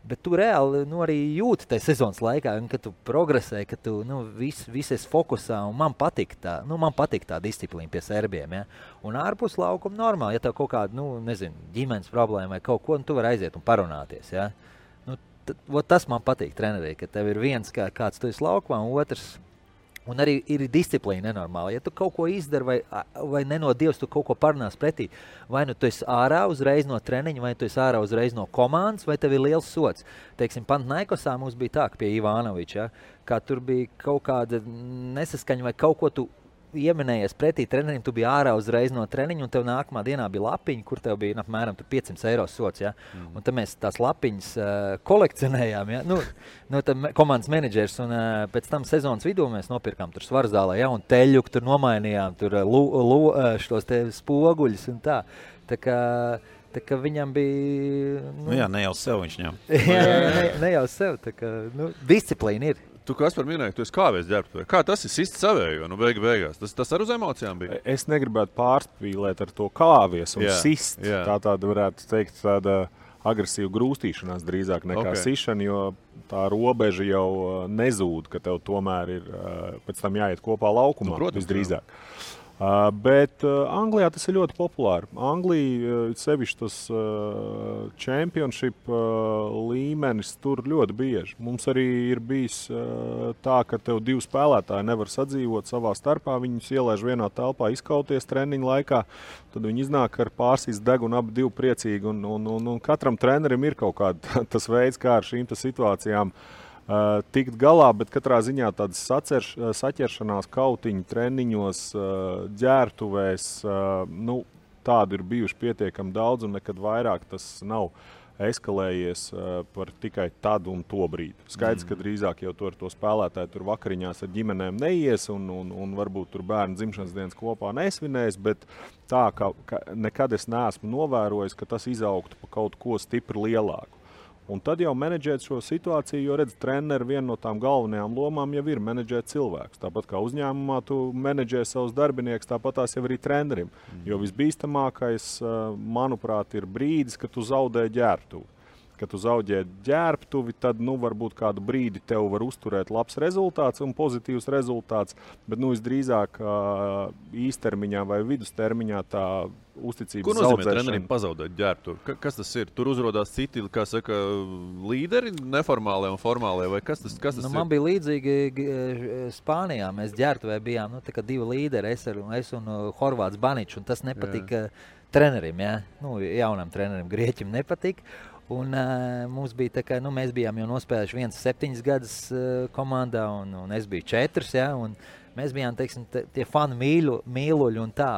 bet tu reāli arī jūti tajā sezonas laikā, kad tu progresē, ka tu viss esi fokusā, un man patīk tā disciplīna pie serbiem. Ja? Un ārpus laukuma normāli, ja tev kaut kāda, ģimenes problēma vai kaut ko, tu vari aiziet un parunāties. Ja? Tas man patīk trenerī, ka tev ir viens kāds tu esi laukumā, un otrs. Un arī ir disciplīna nenormāla. Ja tu kaut ko izdari vai nenodievs, tu kaut ko parunās pretī, vai tu esi ārā uzreiz no treniņa, vai tu esi ārā uzreiz no komandas, vai tev ir liels sots. Teiksim, Panathinaikosā mums bija tā, ka pie Ivanoviča, ja, kā tur bija kaut kāda nesaskaņa vai kaut ko tu ieminējies pretī trenerim, tu biji ārā uzreiz no treniņa, un tev nākamā dienā bija lapiņa, kur tev bija apmēram 500 eiro sots. Ja? Un tad mēs tās lapiņas kolekcionējām. Ja? Komandas menedžers, un pēc tam sezonas vidū mēs nopirkām tur Svarzālē, ja? Un teļuku tur nomainījām, tur šos te spoguļus un tā. Tā kā viņam bija... Jā, ne jau sev viņš ņem. ne jau sev. Tā kā, disciplīna ir. Tu, Kaspar, minēji, ka tu esi kāvēs ģērbtuvē. Kā tas ir sist savējo, beigās? Tas ar uz emocijām bija? Es negribētu pārspīlēt ar to kāvies un sist. Jā. Tāda varētu teikt tāda agresīva grūstīšanās drīzāk nekā sišana, jo tā robeža jau nezūd, ka tev tomēr ir pēc tam jāiet kopā laukumā, visdrīzāk. Bet Anglijā tas ir ļoti populāri. Anglija, sevišķi tas championship līmenis tur ļoti bieži. Mums arī ir bijis tā, ka tev 2 spēlētāji nevar sadzīvot savā starpā. Viņus ielaiž vienā telpā izkauties treniņu laikā. Tad viņi iznāk ar pārsīs degunu, abi 2 priecīgi. Un katram trenerim ir kaut kāda tas veids, kā ar šīm situācijām tikt galā, bet katrā ziņā tādas saķeršanās kautiņu treniņos, ģērtuvēs, tādu ir bijuši pietiekami daudz, un nekad vairāk tas nav eskalējies par tikai tad un to brīdi. Skaidrs, ka drīzāk jau to spēlētāju tur vakariņās ar ģimenēm neies un varbūt tur bērnu dzimšanas dienas kopā nesvinēs, bet tā, ka nekad es neesmu novērojis, ka tas izaugtu pa kaut ko stipri lielāku. Un tad jau menedžēt šo situāciju, jo redz, treneri viena no tām galvenajām lomām jau ir menedžēt cilvēkus. Tāpat kā uzņēmumā tu menedžē savus darbiniekus, tāpat tās jau arī trenerim. Jo visbīstamākais, manuprāt, ir brīdis, kad tu zaudē ģērbtuvi. Kad tu zaudē ģērbtuvi, tad varbūt kādu brīdi tev var uzturēt labs rezultāts un pozitīvs rezultāts, bet visdrīzāk īstermiņā vai vidustermiņā tā uzticības zaudēšana. Ko nozīmē trenerim pazaudēt ģērbtuvi? Kas tas ir? Tur uzrodās citi, kā saka, līderi, neformālie un formālie, vai kas tas ir? Man bija līdzīgi Spānijā. Mēs ģērbtuvē bijām, tā kā divi līderi, es un Horvāts Baničs, un tas nepatika trenerim, jaunam trenerim, Grieķim nepatika. Un mums bija tā, ka mēs bijām jau nospēlējuši 7 gadus komandā, un es biju 4, un mēs bijām, teiksim, tie fanu mīluļi un tā,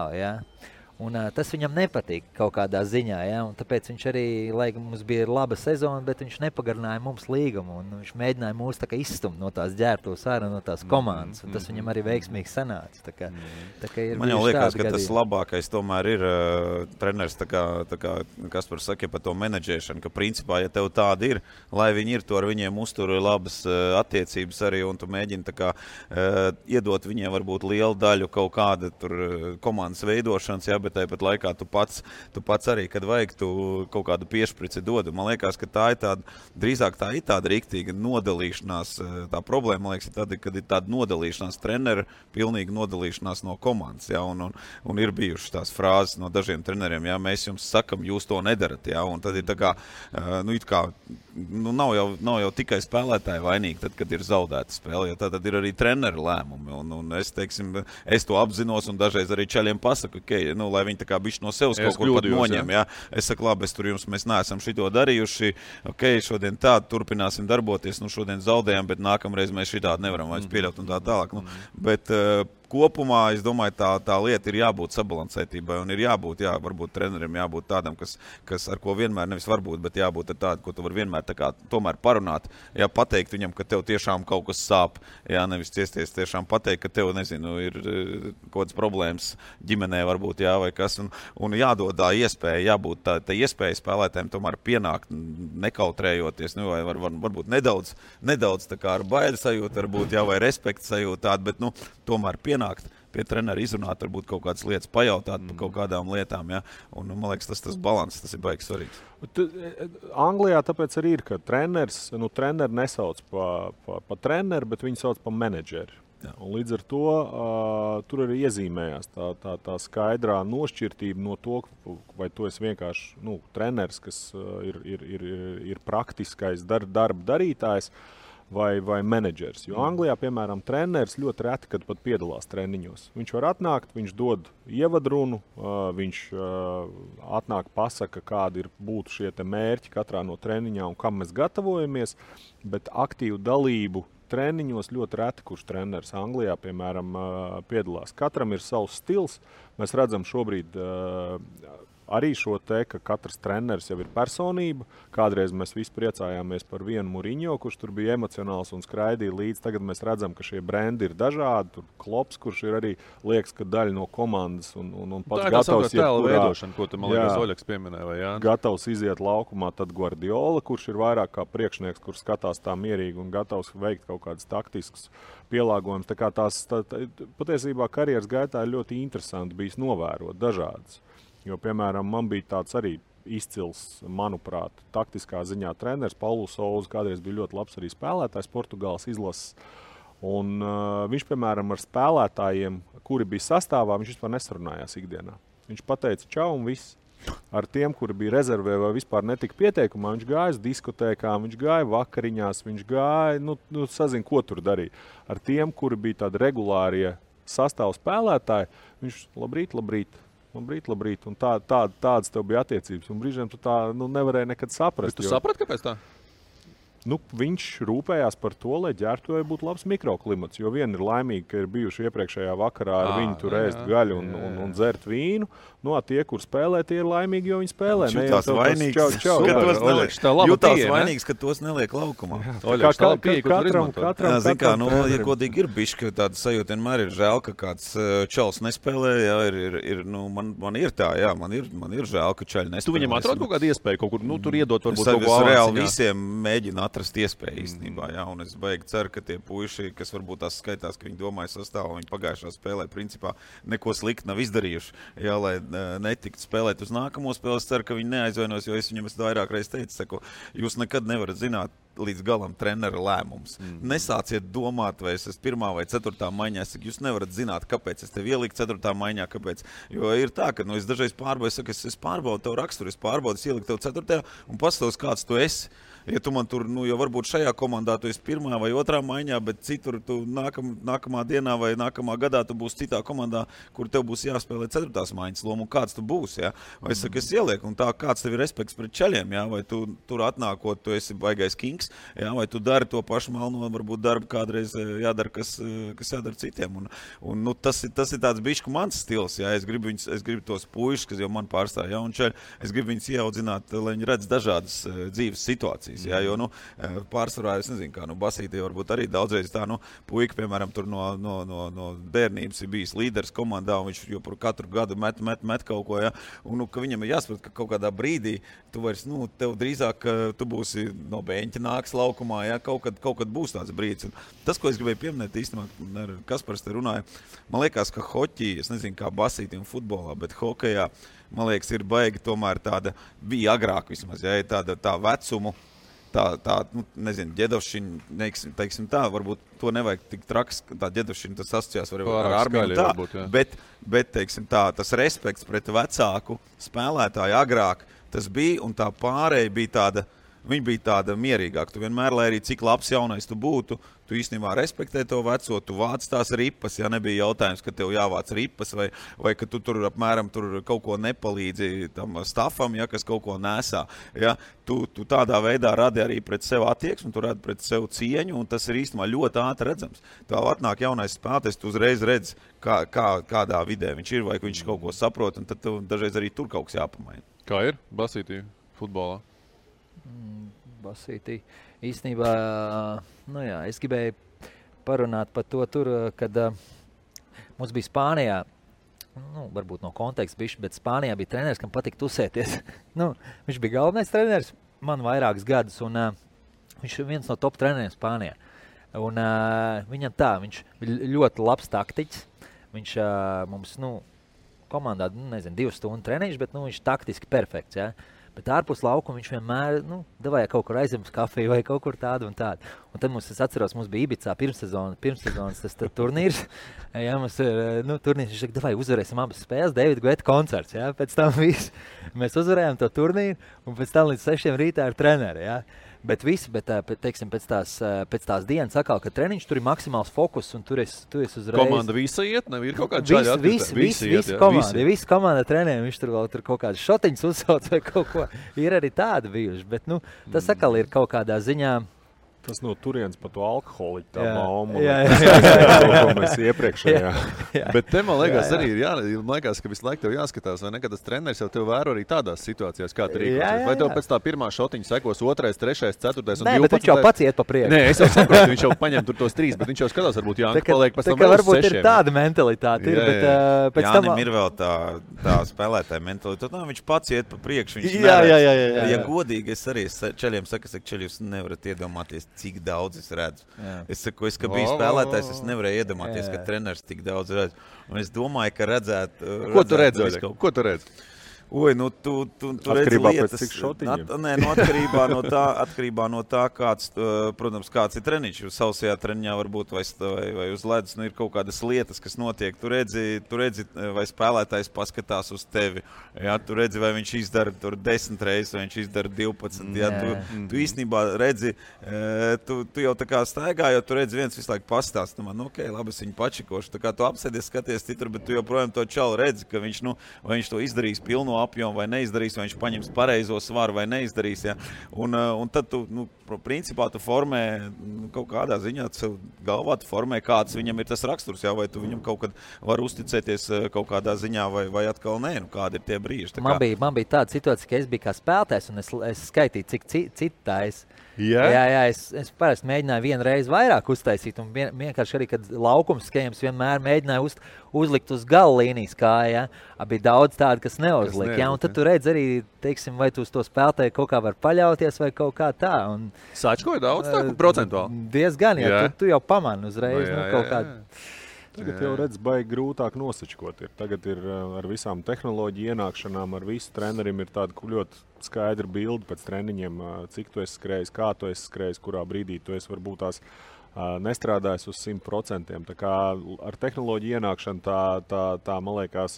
Un tas viņam nepatīk kaut kādā ziņā, un tāpēc viņš arī, lai mums bija laba sezona, bet viņš nepagarināja mums līgumu, un viņš mēģināja mūs tā kā izstumt no tās ģērbtuves ārā, no tās komandas, un tas viņam arī veiksmīgi sanāca. Tā kā ir man jau liekas, ka tas labākais tomēr ir treneris, tā kā Kaspars saka par to menedžēšanu, ka principā, ja tev tādi ir, lai viņi ir, to ar viņiem uztur labas attiecības arī, un tu mēģini tā kā iedot viņiem varbūt lielu daļu kaut kāda tur komandas veidošanas, bet tāpat laikā tu pats arī, kad vajag, tu kaut kādu piešprici dod. Man liekas, ka tā ir tāda riktīga nodalīšanās. Tā problēma, man liekas, ir tāda, kad ir tāda nodalīšanās trenera, pilnīga nodalīšanās no komandas. Un ir bijušas tās frāzes no dažiem treneriem, mēs jums sakam, jūs to nedarat. Un tad ir tā kā, nav jau tikai spēlētāji vainīgi, tad, kad ir zaudēta spēle, jo tad ir arī treneru lēmumi. Un es to apzinos un dažreiz arī čaļiem pasaku, lai viņi tā kā bišķi no sevis kaut kur pat noņem. Es saku, labi, mēs neesam šito darījuši, šodien turpināsim darboties, šodien zaudējam, bet nākamreiz mēs šitādi nevaram vairs pieļaut un tā tālāk. Bet kopumā, es domāju, tā lieta ir jābūt sabalansētībai un ir jābūt, varbūt trenerim jābūt tādam, kas ar ko vienmēr nevis varbūt, bet jābūt ar tādu, ko tu var vienmēr tā kā tomēr parunāt, pateikt viņam, ka tev tiešām kaut kas sāp, nevis ciesties tiešām pateikt, ka tev, ir kaut kādas problēmas ģimenē varbūt, vai kas, un jādod tā iespēja, jābūt tā iespēja spēlētājiem tomēr pienākt, nekautrējoties, vai varbūt nedaudz tā kā ar baidu sajūtu, varbūt, vai respektu sajūtu tādu, bet, tomēr pienākt pie trenera, izrunāt, varbūt kaut kādas lietas, pajautāt par kaut kādām lietām, un, man liekas, tas balans, tas ir baigi svarīgs. Anglijā tāpēc arī ir, ka treneri nesauc pa treneru, bet viņi sauc pa menedžeri. Un līdz ar to tur arī iezīmējās tā skaidrā nošķirtība no to, vai tu esi vienkārši treneris, kas ir praktiskais darba darītājs, vai menedžers. Jo Anglijā, piemēram, treneris ļoti reti, kad pat piedalās treniņos. Viņš var atnākt, viņš dod ievadrunu, viņš atnāk pasaka, kādi būtu šie te mērķi katrā no treniņā un kam mēs gatavojamies, bet aktīvu dalību treniņos ļoti reti, kurš treneris Anglijā, piemēram, piedalās. Katram ir savs stils. Mēs redzam šobrīd arī šo te, ka katrs treneris jau ir personība. Kādreiz mēs visi priecājāmies par vienu Muriņo, kurš tur bija emocionāls un skraidīja līdz. Tagad mēs redzam, ka šie brendi ir dažādi. Tur Klops, kurš ir arī, liekas, ka daļa no komandas un pats gatavs iet tēla veidošana, ko tu, man liekas, Oļeks pieminēja, vai Jānis? Gatavs iziet laukumā, tad Guardiola, kurš ir vairāk kā priekšnieks, kurš skatās tā mierīgi un gatavs veikt kaut kādas taktiskas pielāgojumus. Tā kā patiesībā karjeras gaitā ir ļoti interesanti bijis novērot dažādas. Jo, piemēram, man bija tāds arī izcils, manuprāt, taktiskā ziņā treneris. Paulo Souza kādreiz bija ļoti labs arī spēlētājs Portugāles izlases. Un viņš, piemēram, ar spēlētājiem, kuri bija sastāvā, viņš vispār nesarunājās ikdienā. Viņš pateica čau un viss. Ar tiem, kuri bija rezervē vai vispār netika pieteikumā, viņš gāja uz diskotēkām, viņš gāja vakariņās, viņš gāja, sazin, ko tur darīja. Ar tiem, kuri bija tādi regulārie sastāvu spēlētāji, viņš labrīt. Un tādas tev bija attiecības. Un brīžiem tu tā nevarēji nekad saprast. Bet tu saprati, kāpēc tā? viņš rūpējās par to, lai ģērbtuvē būtu labs mikroklimats. Jo viena ir laimīga, ka ir bijuši iepriekšējā vakarā ar viņu tur ēst gaļu un dzert vīnu. Tie, kur spēlē, tie ir laimīgi, jo viņi spēlē. Jutās vainīgs, ka tos neliek laukumā. Katram, ja godīgi ir bišķi, tāda sajūta vienmēr ir žēl, ka kāds čals nespēlē. Man ir tā, man ir žēl, ka čaļi nespēlē. Tu viņam atrod kaut kādu iespēju, kaut kur tur iedot varbūt kaut ko avanciņā? Es reāli visiem mēģinu atrast iespēju īstenībā, un es baigi ceru, ka tie puiši, kas varbūt tās skaitās, ka viņi domāja sastāvu, viņi pagājušā spēlē principā neko slikti nav izdarījuši, lai netikt spēlēt uz nākamo spēli. Es ceru, ka viņi neaizvainos, jo es viņam vairāk reiz teicu, jūs nekad nevarat zināt līdz galam trenera lēmums. Nesāciet domāt, vai es esmu 1. vai 4. maiņā. Jūs nevarat zināt, kāpēc es tevi ieliku 4. maiņā, kāpēc. Jo ir tā, ka es dažreiz pārbaudu, es pārbaudu tavu raksturu, es ieliku tev 4. un pastāvs, kāds tu esi. Ja tu man tur, jo varbūt šajā komandā tu esi 1. vai 2. maiņā, bet citur tu nākamā dienā vai nākamā gadā tu būsi citā komandā, kur tev būs jāspēlē 4. maiņas loma, un kāds tu būsi, Vai es saku, es ielieku, un tā kāds tev ir respekts pret čaļiem, vai tu tur atnākot, tu esi baigais kings, vai tu dari to pašu malno, varbūt darbu kādreiz jādara, kas jādara citiem. Un tas ir tāds bišķi mans stils, es gribu tos puišus, kas jau man pārstāv jauni čaļi, es gribu viņus ieaudzināt, lai viņi redz dažādas dzīves situācijas. Jo, pārsvarā, es nezinu, kā, Basītī varbūt arī daudzreiz tā, puika, piemēram, tur no bērnības ir bijis līderis komandā, un viņš jau katru gadu met kaut ko, un, ka viņam ir jāsaprot, ka kaut kādā brīdī tu vairs, tev drīzāk, tu būsi no beņķa nāks laukumā, kaut kad būs tāds brīdis. Un tas, ko es gribēju pieminēt, īstenībā, Kaspars te runāja, man liekas, ka hoķī, es nezinu, kā Basītī un futbolā, bet hokejā, man liekas, ir baigi tomēr tāda, bija agrāk vismaz, tā vecumu, nezinu, ģedovšķiņa, teiksim tā, varbūt to nevajag tik traks, tā ģedovšķiņa, tas asociās ar armiju tā, varbūt, bet, teiksim tā, tas respekts pret vecāku spēlētāju agrāk, tas bija, un tā pārēja bija tāda, viņa bija tāda mierīgāka. Tu vienmēr, lai arī cik labs jaunais tu būtu, tu īstenībā respektē to veco, tu vāc tās ripas, nebija jautājums, ka tev jāvāc ripas, vai ka tu tur apmēram tur kaut ko nepalīdzi tam stafam, kas kaut ko nesā. Tu tādā veidā radi arī pret sev attieksmi, tu radi pret sev cieņu, un tas ir īstenībā ļoti ātri redzams. Tev atnāk jaunais spēlētājs, tu uzreiz redz, kādā vidē viņš ir, vai viņš kaut ko saprot, un tad tev dažreiz arī tur kaut kas jāpamaina. Kā ir Basītī futbolā? Basītī. Īstenībā, es gribēju parunāt par to tur, kad mums bija Spānijā, varbūt no konteksta bišķi, bet Spānijā bija treneris, kam patika tusēties. Viņš bija galvenais treneris man vairākus gadus, un viņš ir viens no top treneriem Spānijā. Un viņam viņš bija ļoti labs taktiķis. Viņš mums, komandā, 2 stundu treniņš, bet viņš taktiski perfekts, Bet ārpus laukuma viņš vienmēr, devāja kaut kur aizem uz kafiju vai kaut kur tādu un tādu. Un tad es atceros, mums bija Ibicā pirmssezonas tas turnīrs. Mums ir, turnīrs, viņš saka, devāja uzvarēsim abas spēles, Davida Guetta koncerts, Pēc tam mēs uzvarējām to turnīru, un pēc tam līdz 6 rītā ar treneri, teiksim, pēc tās dienas atkal, ka treniņš tur ir maksimāls fokus, un tur es uzreiz... Komanda visa iet, nav ir kaut kāda čaļa atkrita? Visa komanda trenē, viņš tur vēl kaut kādas šotiņas uzsauc vai kaut ko. Ir arī tādi bijuši, bet, tas atkal ir kaut kādā ziņā... Tas no turienes pa to alkoholiķu tā mauma. Jā. Mēs iepriekšējā. Bet te man liekas arī ir, man liekas, ka visu laiku tev jāskatās, vai nekad tas treneris jau tev vēro arī tādās situācijās, kā tu rīkosies. Vai tev pēc tā pirmā šotiņa sekos 2., 3., 4. un 12. Nē, bet viņš jau pats iet pa priekšu. Nē, es jau saprotu, viņš jau paņem tur tos 3, bet viņš jau skatās, varbūt Jānis paliek pēc tam vēl uz 6. Varbūt ir tāda mentalitāte, bet pēc tam... Jānim ir vēl tā spēlētāja mentalitāte. Viņš pats iet pa priekšu, viņš Ja godīgi, es arī čaļiem saku, čaļi jūs nevarat iedomāties, cik daudz es redzu. Es saku, ka biju spēlētājs, es nevarēju iedomāties, ka treneris tik daudz redz. Un es domāju, ka redzētu... Ko tu redzi? Ko tu redzi? Tu redzi lietas. Atkarībā no tā, kāds, protams, kāds ir treniņš. Sausajā treniņā varbūt vai uz ledus ir kaut kādas lietas, kas notiek. Tu redzi, vai spēlētājs paskatās uz tevi. Tu redzi, vai viņš izdara 10 reizes, vai viņš izdara 12. Tu īstenībā redzi, tu jau tā kā staigā, jo tu redzi viens visu laiku pastāst. Labi, es viņu pačikošu. Tā kā tu apsēdies, skaties citur, bet tu joprojām to čalu redzi, ka viņš to izdarīs pilnu apjomu vai neizdarīs, vai viņš paņems pareizo svaru vai neizdarīs. Ja? Un tad tu, principā tu formē kaut kādā ziņā, galvā tu formē, kāds viņam ir tas raksturs, ja? Vai tu viņam kaut kad var uzticēties kaut kādā ziņā vai atkal nē, kādi ir tie brīži. Man bija tāda situācija, ka es biju kā spēlētājs un es skaitīju, cik citājas. Yeah. Jā, es parasti mēģināju vienu reizi vairāk uztaisīt, un vienkārši arī, kad laukums skējums vienmēr mēģināju uzlikt uz gala līnijas kāja, ja? Bija daudz tādu, kas neuzlika, ja? Un tad tu redz arī, teiksim, vai tu uz to spēlētāju kaut kā var paļauties vai kaut kā tā. Un, Sačkoja daudz tā, procentuāli? Diezgan, ja tu jau pamani uzreiz, kaut kādu. Tagad jau redz, baigi grūtāk nosačkot. Tagad ir ar visām tehnoloģiju ienākšanām, ar visu trenerim ir tāda ļoti skaidra bilde pēc treniņiem, cik tu esi skrējis, kā tu esi skrējis, kurā brīdī tu esi varbūt tās nestrādājis uz 100%. Tā kā ar tehnoloģiju ienākšanu tā man liekas,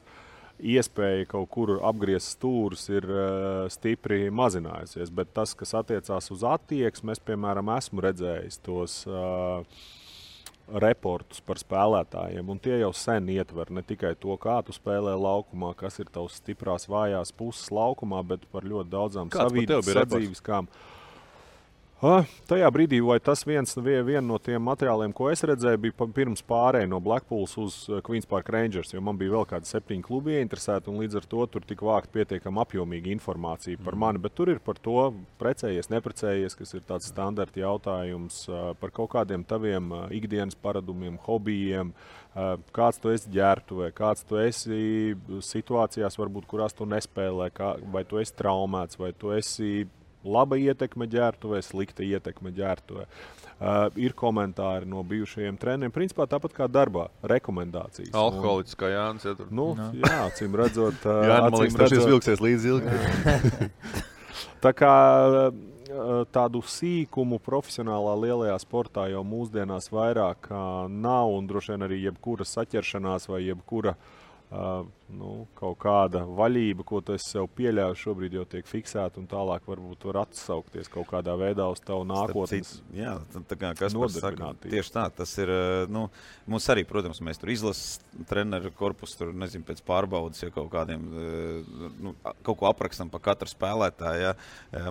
iespēja kaut kur apgriezt stūrus ir stipri mazinājusies, bet tas, kas attiecās uz attieksmi, es, piemēram, esmu redzējis tos reportus par spēlētājiem, un tie jau sen ietver ne tikai to, kā tu spēlē laukumā, kas ir tavs stiprās vājās puses laukumā, bet par ļoti daudzām sadzīviskām. Tajā brīdī, vai tas viena no tiem materiāliem, ko es redzēju, bija pirms pārēja no Blackpools uz Queens Park Rangers, jo man bija vēl kādi 7 klubi ieinteresēti, un līdz ar to tur tika vākt pietiekami apjomīga informācija par mani, bet tur ir par to precējies, neprecējies, kas ir tāds standarta jautājums par kaut kādiem taviem ikdienas paradumiem, hobijiem, kāds tu esi ģērbtuvē, kāds tu esi situācijās, varbūt, kurās tu nespēlē, vai tu esi traumēts, vai tu esi laba ietekme ģērbtuvē, slikta ietekme ģērbtuvē. Ir komentāri no bijušajiem treneriem, principā tāpat kā darbā, rekomendācijas. Alkoholiķis kā Jānis. Ja tur. Jā, acīm redzot. Jā, man liekas, tas vilksies līdz ilgi. Tā kā tādu sīkumu profesionālā lielajā sportā jau mūsdienās vairāk nav, un droši vien arī jebkura saķeršanās vai jebkura kaut kāda vaļība, ko tu esi sev pieļāvis, šobrīd jau tiek fiksēta un tālāk varbūt var atsaukties kaut kādā veidā uz tavu nākotnes. Jā, tā kā Kaspars saka, tieši tā, tas ir, mums arī, protams, mēs tur izlases treneru korpusu, tur, nezinu, pēc pārbaudas, ja kaut kādiem, kaut ko aprakstam pa katru spēlētāju, ja.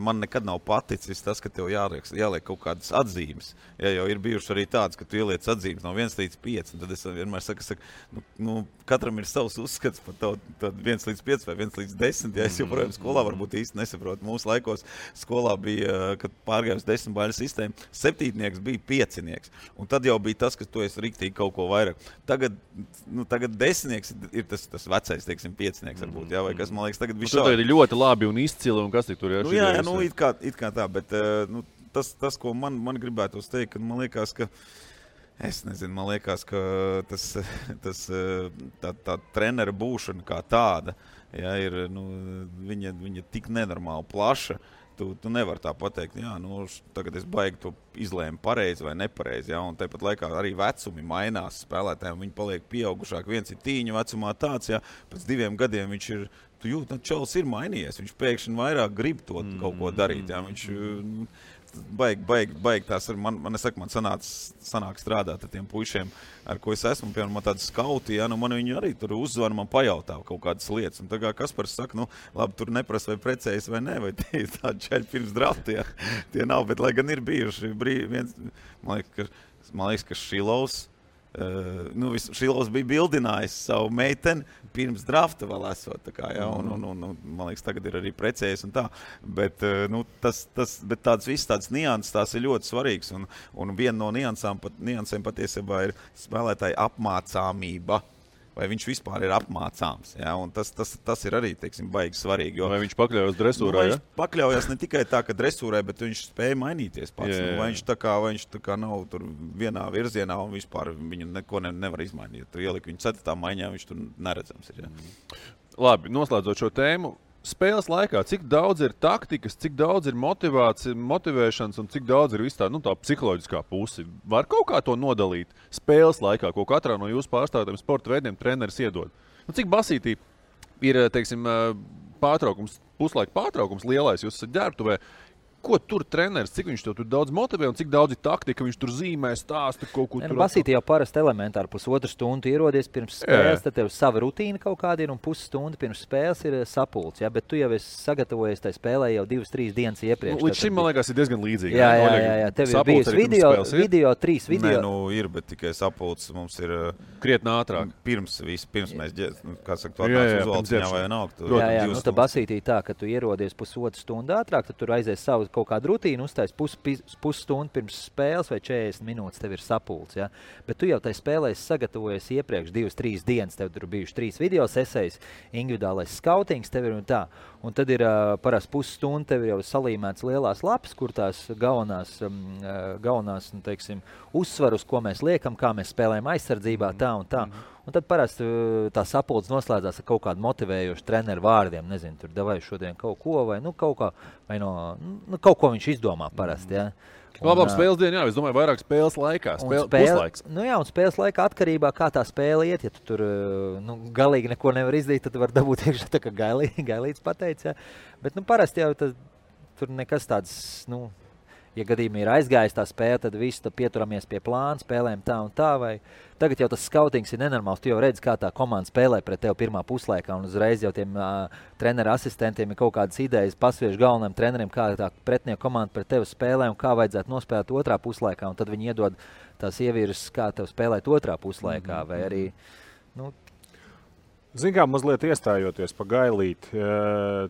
Man nekad nav paticis tas, ka tev jāliek kaut kādas atzīmes. Ja jau ir bijuši arī tāds, ka tu ieliec atzīmes no 1 līdz 5, un tad es vienmēr saku, katram ir savs uzskats par tad 1 līdz 5 vai 1 līdz 10. Ja es joprojām skolā varbūt īsti nesaprotu. Mūsu laikos skolā bija, kad pārgāja uz 10 baļu sistēmu, 7. bija 5. Un tad jau bija tas, ka tu esi riktīgi kaut ko vairāk. Tagad 10. ir tas vecais, teiksim, 5. varbūt. Ja? Vai kas, man liekas, tagad bija šādi. Ir ļoti labi un izcili, un kas tik tur ir? Jā, it kā tā, bet tas, ko man gribētos teikt, ka man liekas, ka es nezinu, man liekas, ka tā trenera būšana kā tāda, ja, ir, viņa tik nenormāli plaša, tu nevar tā pateikt, jā, tagad es baigi to izlēmu pareizi vai nepareizi, ja, un tāpat laikā arī vecumi mainās spēlētājiem, viņi paliek pieaugušāk, viens ir tīņu vecumā tāds, ja, pēc 2 gadiem viņš ir, tu jūt, čalis ir mainījies, viņš pēkšņi vairāk grib to kaut ko darīt, ja, viņš baigi tās ir, man sanāk strādāt ar tiem puišiem, ar ko es esmu, piemēram, man tādi skauti, ja, man viņi arī tur uzzvan, man pajautā kaut kādas lietas, un tā kā Kaspars saka, labi, tur neprasa vai precējas vai ne, vai tie ir tādi čaļi pirms drafta, ja, tie nav, bet lai gan ir bijuši man liekas, ka Šilovs, Šilovs bija bildinājis savu meiteni pirms drafta vēl esot, tā kā, ja, un man liekas, tagad ir arī precējies un tā, bet, bet tādas nianses, tās ir ļoti svarīgas, un viena no niansēm patiesībā ir spēlētāja apmācāmība, vai viņš vispār ir apmācāms, ja, un tas ir arī, teiksim, baigi svarīgi, jo... Vai viņš pakļaujas dresūrai, ja? Viņš pakļaujas ne tikai tā, ka dresūrai, bet viņš spēja mainīties pats, vai viņš tā kā nav tur vienā virzienā un vispār viņu neko nevar izmainīt, tur ielikt viņu 4. maiņā, viņš tur neredzams ir, ja. Labi, noslēdzot šo tēmu, spēles laikā, cik daudz ir taktikas, cik daudz ir motivēšanas un cik daudz ir viss tā psiholoģiskā puse? Var kaut kā to nodalīt spēles laikā, ko katrā no jūsu pārstāvjiem sporta veidiem treneris iedod? Cik basītī ir, teiksim, puslaika pārtraukums lielais, jūs esat ģērbtuvē, ko tur treneris, cik viņš tur daudz motivē un cik daudz ir taktika, viņš tur zīmē, stāsta kaut ko tur. Basīti jau parasti elementāri pusotru stundu ierodies pirms spēles, tad tev sava rutīna kaut kāda ir un pusstunda pirms spēles ir sapulcs, ja? Bet tu jau esi sagatavojies tai spēlē jau 2-3 dienas iepriekš. Līdz šim, man liekas, ir diezgan līdzīgi. Jā. Tev ir bijis video 3 video. Nē, ir, bet tikai sapulcs mums ir krietni ātrāk. Pirms mēs, kā saka, to atnāc uz valciņā vai nav. Jā, tad basītī tā, ka tu ierodies pusotru stundu ātrāk, tad tur aizies savu kaut kādu rutīnu, uztais pusstundu pirms spēles vai 40 minūtes tev ir sapulcs, ja? Bet tu jau tai spēlē sagatavojies iepriekš 2-3 dienas, tev tur bijuši 3 video sesijas, individuālais skautings tev ir un tā. Un tad ir parasti pusstundu tev jau salīmēts lielās lapas, kur tās galvenās nu, teiksim, uzsvarus, ko mēs liekam, kā mēs spēlējam aizsardzībā, tā un tā. Un tad parasti tā sapulce noslēdzās ar kaut kādu motivējošu treneru vārdiem. Nezinu, tur davai šodien kaut ko vai kaut kā, vai kaut ko viņš izdomā parasti, ja. Labāk spēles dienu, jā, es domāju, vairāk spēles laikā, puslaiks. Un spēles laikā atkarībā, kā tā spēle iet, ja tu tur galīgi neko nevar izdarīt, tad tu var dabūt iekšā tā, kā gailīts pateica, ja. Bet parasti jau tur nekas tāds, ja gadījumā ir aizgājis tā spēle, tad visi tad pieturamies pie plāna, spēlēm tā un tā, vai tagad jau tas skautings ir nenormāls, tu jau redzi, kā tā komanda spēlē pret tevi pirmā puslaikā, un uzreiz jau tiem treneru asistentiem ir kaut kādas idejas, pasviež galvenajiem treneriem, kā tā pretinieka komanda pret tevi spēlē un kā vajadzētu nospēlēt otrā puslaikā, un tad viņi iedod tās ievirzes, kā tev spēlēt otrā puslaikā, vai arī, Zin kā, mazliet iestājoties pa Gailīti,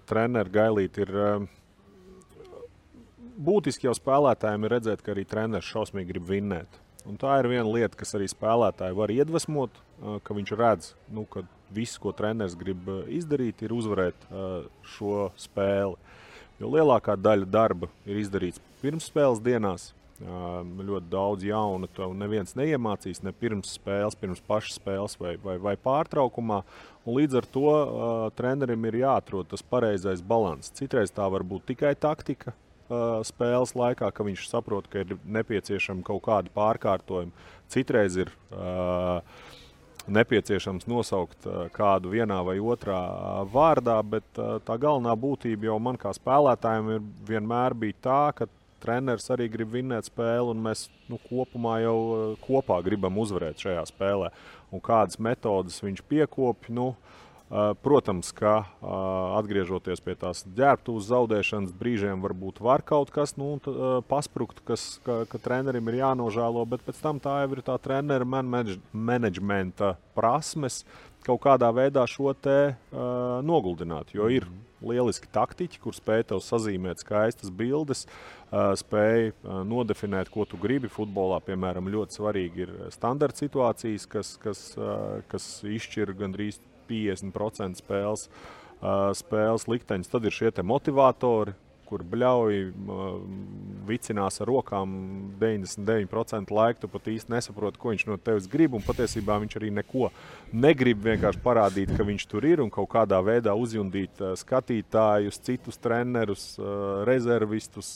treneru Gailīti ir būtiski jau spēlētājiem ir redzēt, ka arī treneris šausmīgi grib vinnēt. Un tā ir viena lieta, kas arī spēlētāji var iedvesmot, ka viņš redz, ka viss, ko treneris grib izdarīt, ir uzvarēt šo spēli. Jo lielākā daļa darba ir izdarīts pirms spēles dienās. Ļoti daudz jaunu to neviens neiemācīs, ne pirms spēles, pirms pašas spēles vai pārtraukumā. Un līdz ar to trenerim ir jāatrod tas pareizais balans. Citreiz tā var būt tikai taktika spēles laikā, ka viņš saprot, ka ir nepieciešama kaut kāda pārkārtojuma. Citreiz ir nepieciešams nosaukt kādu vienā vai otrā vārdā, bet tā galvenā būtība jau man kā spēlētājiem ir vienmēr bija tā, ka treneris arī grib vinnēt spēli, un mēs kopumā jau kopā gribam uzvarēt šajā spēlē. Un kādas metodas viņš piekopja, protams, ka atgriežoties pie tās ģērbtuves zaudēšanas brīžiem varbūt var kaut kas pasprukt, ka trenerim ir jānožēlo, bet pēc tam tā jau ir tā trenera menedžmenta prasmes kaut kādā veidā šo te noguldināt, jo ir lieliski taktiķi, kur spēj tev sazīmēt skaistas bildes, spēj nodefinēt, ko tu gribi futbolā. Piemēram, ļoti svarīgi ir standarta situācijas, kas izšķir gandrīz 50% spēles likteņus. Tad ir šie te motivatori, kur bļauj, vicinās ar rokām 99% laika, tu pat īsti nesaproti, ko viņš no tevis grib, un patiesībā viņš arī neko negrib, vienkārši parādīt, ka viņš tur ir un kaut kādā veidā uzjundīt skatītājus, citus trenerus, rezervistus,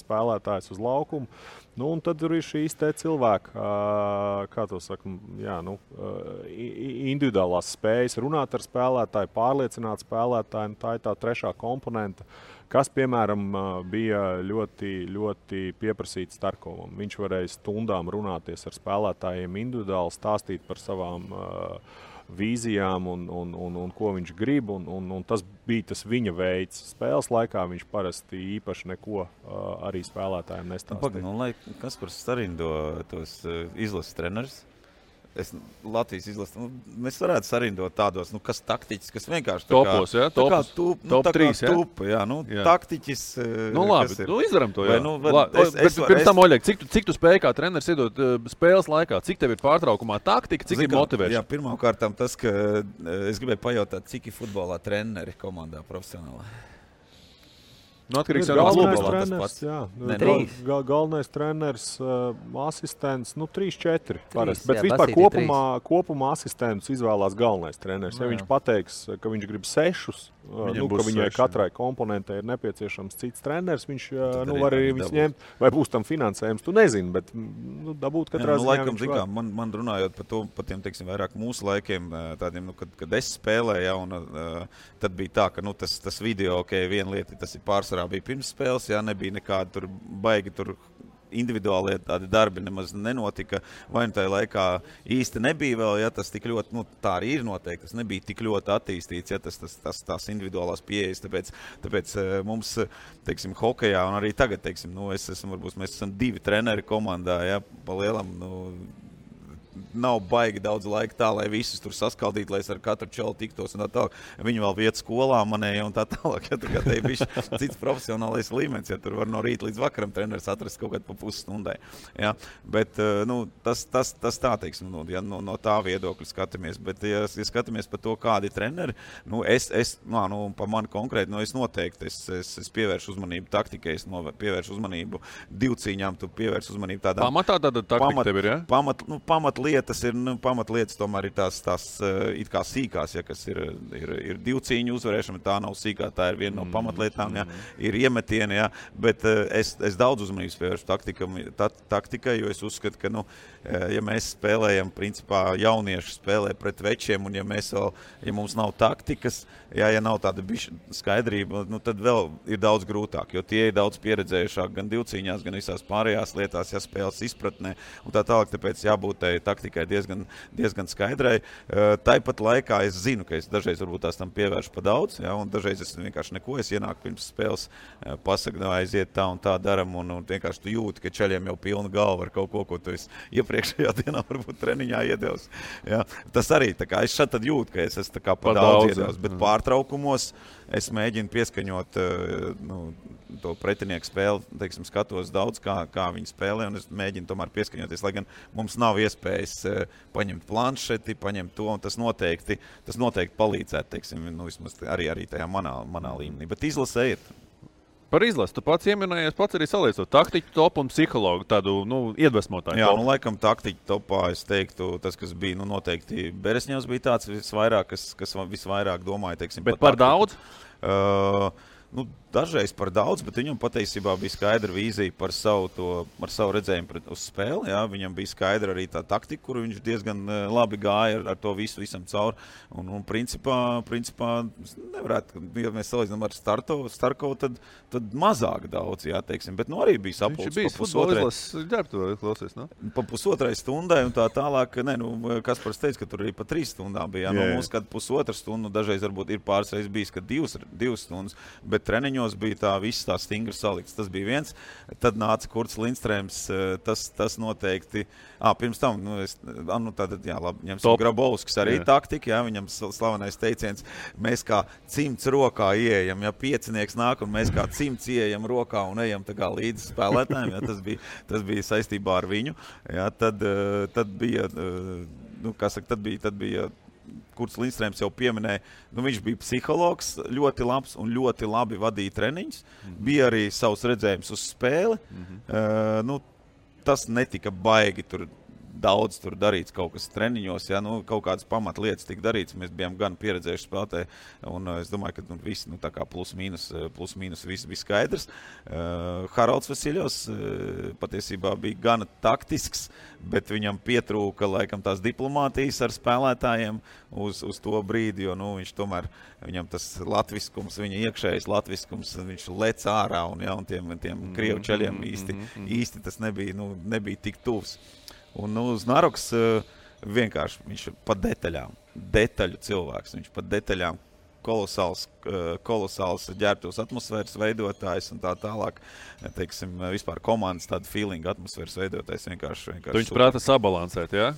spēlētājus uz laukumu. Un tad ir šīs te cilvēki, kā to saka, individuālās spējas runāt ar spēlētāju, pārliecināt spēlētāju, tā ir tā trešā komponenta, kas, piemēram, bija ļoti, ļoti pieprasīts Starkovam. Viņš varēja stundām runāties ar spēlētājiem individuāli, stāstīt par savām vīzijām un ko viņš grib, un tas bija tas viņa veids. Spēles laikā viņš parasti īpaši neko arī spēlētājiem nestāstīja. Kas par sarindo tos izlases trenerus? Latvijas izlasi, mēs varētu sarindot tādos, kas taktiķis, kas vienkārši topos, jā, topos, top 3, jā. Tupa, jā, taktiķis. Labi, izdaram to, jā. Pirms tam, Oļeg, cik tu spēji kā treneris iedot spēles laikā? Cik tev ir pārtraukumā taktika, cik ir motivēšana? Jā, pirmkārtām tas, ka es gribēju pajautāt, cik ir futbolā treneri komandā profesionālā. Atkarīgs no treneris, galvenais treneris, asistents, 3-4 parasti. Bet vispār kopumā asistents izvēlās galvenais treneris. Ja viņš pateiks, ka viņš grib 6 ka viņai katrai komponentei ir nepieciešams cits treneris, viņš var arī visu ņemt, vai būs tam finansējums, tu nezini, bet dabūt katrā ziņā laikam, viņš var. Man runājot par tiem, teiksim, vairāk mūsu laikiem, tādiem, kad es spēlēju, un tad bija tā, ka tas video, viena lieta, tas ir pārsvarā bija pirms spēles, nebija nekāda tur baigi tur individuālie tādi darbi nemaz nenotika, vai tajā laikā īsti nebija vēl, tas tik ļoti, tā arī ir noteikti, tas nebija tik ļoti attīstīts, tās individuālās pieejas, tāpēc mums, teiksim, hokejā, un arī tagad, teiksim, mēs esam 2 treneri komandā, pa lielam, nav baigi daudz laika tā, lai visus tur saskaldītu, lai es ar katru čalu tiktos un tā tālāk. Viņi vēl viet skolā manēja un tā tālāk. Tā te ir bišķi cits profesionālais līmenis, tur var no rīta līdz vakaram treneris atrast kaut kādu pa pusstundai. Bet tas tā, teiksim, no tā viedokļa skatāmies. Bet, ja skatāmies par to, kādi treneri, pa mani konkrēti, es noteikti, es pievēršu uzmanību taktikai, es pievēršu uzmanību divcīņām, tu pievēršu uzmanību tādām. Pamatā tāda taktika tev ir, Pamatlietas tomēr ir tās it kā sīkās, kas ir divcīņu uzvarēšana, tā nav sīkā, tā ir viena no pamatlietām, ir iemetieni, bet es daudz uzmanības pievēršu taktikai, jo es uzskatu, ka, ja mēs spēlējam, principā jaunieši spēlē pret večiem, un ja mums nav taktikas, ja nav tāda skaidrība, tad vēl ir daudz grūtāk, jo tie ir daudz pieredzējušāk gan divcīņās, gan visās pārējās lietās, spēles izpratnē, un tā tālāk, tāpēc jābūt taktikai diezgan skaidrai. Tāpat laikā es zinu, ka es dažreiz varbūt tās tam pievēršu pa daudz, un dažreiz es vienkārši neko, es ienāku pirms spēles, pasaku, aiziet tā un tā daram, un vienkārši tu jūti, ka čaļiem jau pilna galva ar kaut ko tu esi iepriekšējā dienā varbūt treniņā iedevis. Tas arī, tā kā es šad tad jūtu, ka es esmu tā kā pa daudz iedevis, bet pārtraukumos es mēģinu pieskaņot to pretinieku spēli, teiksim, skatos daudz, kā viņi spēlē, un es mēģinu tomēr pieskaņoties, lai gan mums nav iespējas paņemt planšeti, paņemt to, un tas noteikti palīdzētu, teiksim, vismaz arī tajā manā līmenī. Bet izlase ir. Par izlasi, tu pats ieminējies, pats arī saliecot taktiķu topu un psihologu, tādu, iedvesmotāju topu. Laikam taktiķu topā, es teiktu, tas, kas bija, noteikti Beresņevs bija tāds visvairāk, kas visvairāk domāja, teiksim, bet par daudz? Dažreiz par daudz, bet viņam patiesībā bija skaidra vīzija par savu redzējumu uz spēli. Viņam bija skaidra arī tā taktika, kuru viņš diezgan labi gāja ar to visam cauri. Un principā nevarētu, ja mēs salīdzinām ar Starkovu, tad mazāk daudz, teiksim. Bet arī bija sapulcs. Viņš bija futbolis ģērbtu, klausies, ne? Pa pusotrai stundai un tā tālāk, Kaspars teica, ka tur arī pa 3 stundām bija. Mums kad pusotra stundu, dažreiz varbūt ir pāris reizes bijis, ka 2 stundas, bet treniņos bija tā viss tā stingri salikts. Tas bija viens. Tad nāca Kurts Lindstrēms, tas noteikti. Pirms tam, ņemsim Grabovskis arī taktika, viņam slavenais teiciens, mēs kā cimds rokā ieejam, piecinieks nāk un mēs kā cimds ieejam rokā un ejam tā kā līdz spēlētājiem, tas bija saistībā ar viņu. Tad bija, tad bija Kurts Lindstrēms jau pieminēja, viņš bija psihologs, ļoti labs un ļoti labi vadīja treniņus, bija arī savs redzējums uz spēli, tas netika baigi tur daudz tur darīts kaut kas treniņos, kaut kādas pamatlietas tika darīts, mēs bijām gan pieredzējuši spēlētāji, un es domāju, ka viss, tā kā plus mīnus viss bija skaidrs. Haralds Vasiļovs patiesībā bija gana taktisks, bet viņam pietrūka, laikam, tās diplomātijas ar spēlētājiem uz to brīdi, jo, viņš tomēr, viņam tas latviskums, viņa iekšējais latviskums, viņš lec ārā, un tiem krievu čaļiem īsti tas nebija tik tuvs. Un uz Naroks vienkārši viņš pa detaļu cilvēks, viņš pa detaļām kolosāls ģērbtos atmosfēras veidotājs un tā tālāk, teiksim, vispār komandas tāda feeling atmosfēras veidotājs vienkārši. Viņš prāta sabalansēt, jā?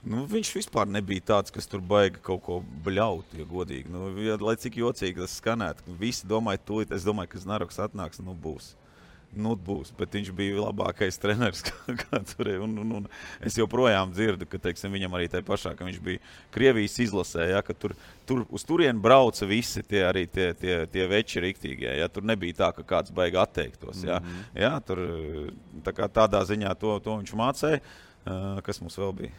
Viņš vispār nebija tāds, kas tur baigi kaut ko bļaut, ja godīgi. Lai cik jocīgi tas skanētu, visi domāja tūlīt, es domāju, ka Naroks atnāks, būs. Būs, bet viņš bija labākais treneris, kā tur ir. Un es joprojām dzirdu, ka, teiksim, viņam arī tai pašā, ka viņš bija Krievijas izlasē, ka tur uz turienu brauca visi tie veči riktīgie. Tur nebija tā, ka kāds baigi atteiktos. Tur tādā ziņā to viņš mācēja. Kas mums vēl bija?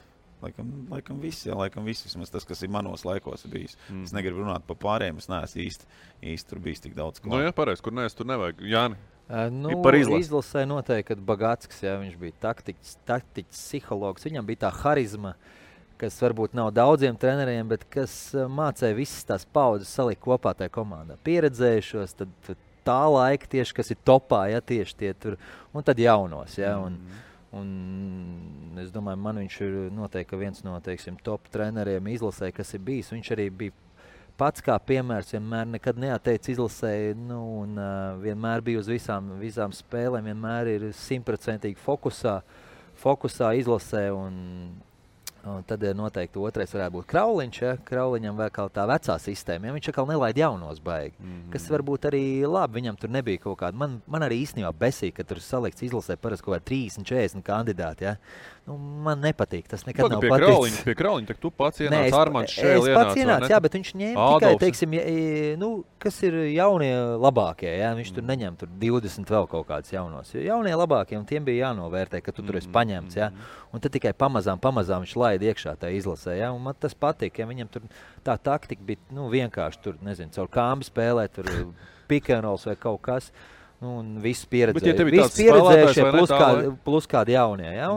Laikam viss, vismaz tas, kas ir manos laikos bijis. Es negribu runāt par pārējiem, es neesmu īsti tur bijis tik daudz. Nu, jā, pareiz, kur neesi, tur nevajag. Jāni, par izlasē noteikti, kad Bagatskis, jā, viņš bija taktiķis, psihologs, viņam bija tā harizma, kas varbūt nav daudziem treneriem, bet kas mācēja visas tās paudzes salikt kopā tajā komandā. Pieredzējušos, tad tā laika tieši, kas ir topā, ja tieši tie tur, un tad jaunos, ja, un es domāju, man viņš ir noteikti viens no, teiksim, top treneriem izlasē, kas ir bijis. Viņš arī bija pats kā piemērs, vienmēr nekad neatteica izlasē, un vienmēr bija uz visām spēlēm, vienmēr ir 100% fokusā izlasē, un tad noteikti otrais varētu būt Krauliņš, ja? Krauliņam vēl kā tā vecā sistēma, ja? Viņš atkal nelaid jaunos baigi, kas varbūt arī labi, viņam tur nebija kaut kāda, man arī īstenībā besīja, ka tur salikts izlasē parasti kaut kā 30-40 kandidāti, ja? Nu, man nepatīk, tas nekad nav paticis. Pie Krauliņa, tak tu pats ienāc, Armands Šēli ienāc. Es pats ienāc, jā, bet viņš ņēma tikai, teiksim, kas ir jaunie labākie, ja? Viņš tur neņem tur 20 vēl kaut kādus jaunos. Jaunie labākie, un tiem bija jānovērtē, ka tu tur esi paņemts, ja? Un tad tikai pamazām viņš laid iekšā tā izlasē, ja? Un man tas patīk, ja viņam tur tā taktika bija, vienkārši tur, nezinu, caur kāmbi spēlē, tur pick and rolls vai kaut kas, un viss pieredzējušie plus kādi jaunie, ja?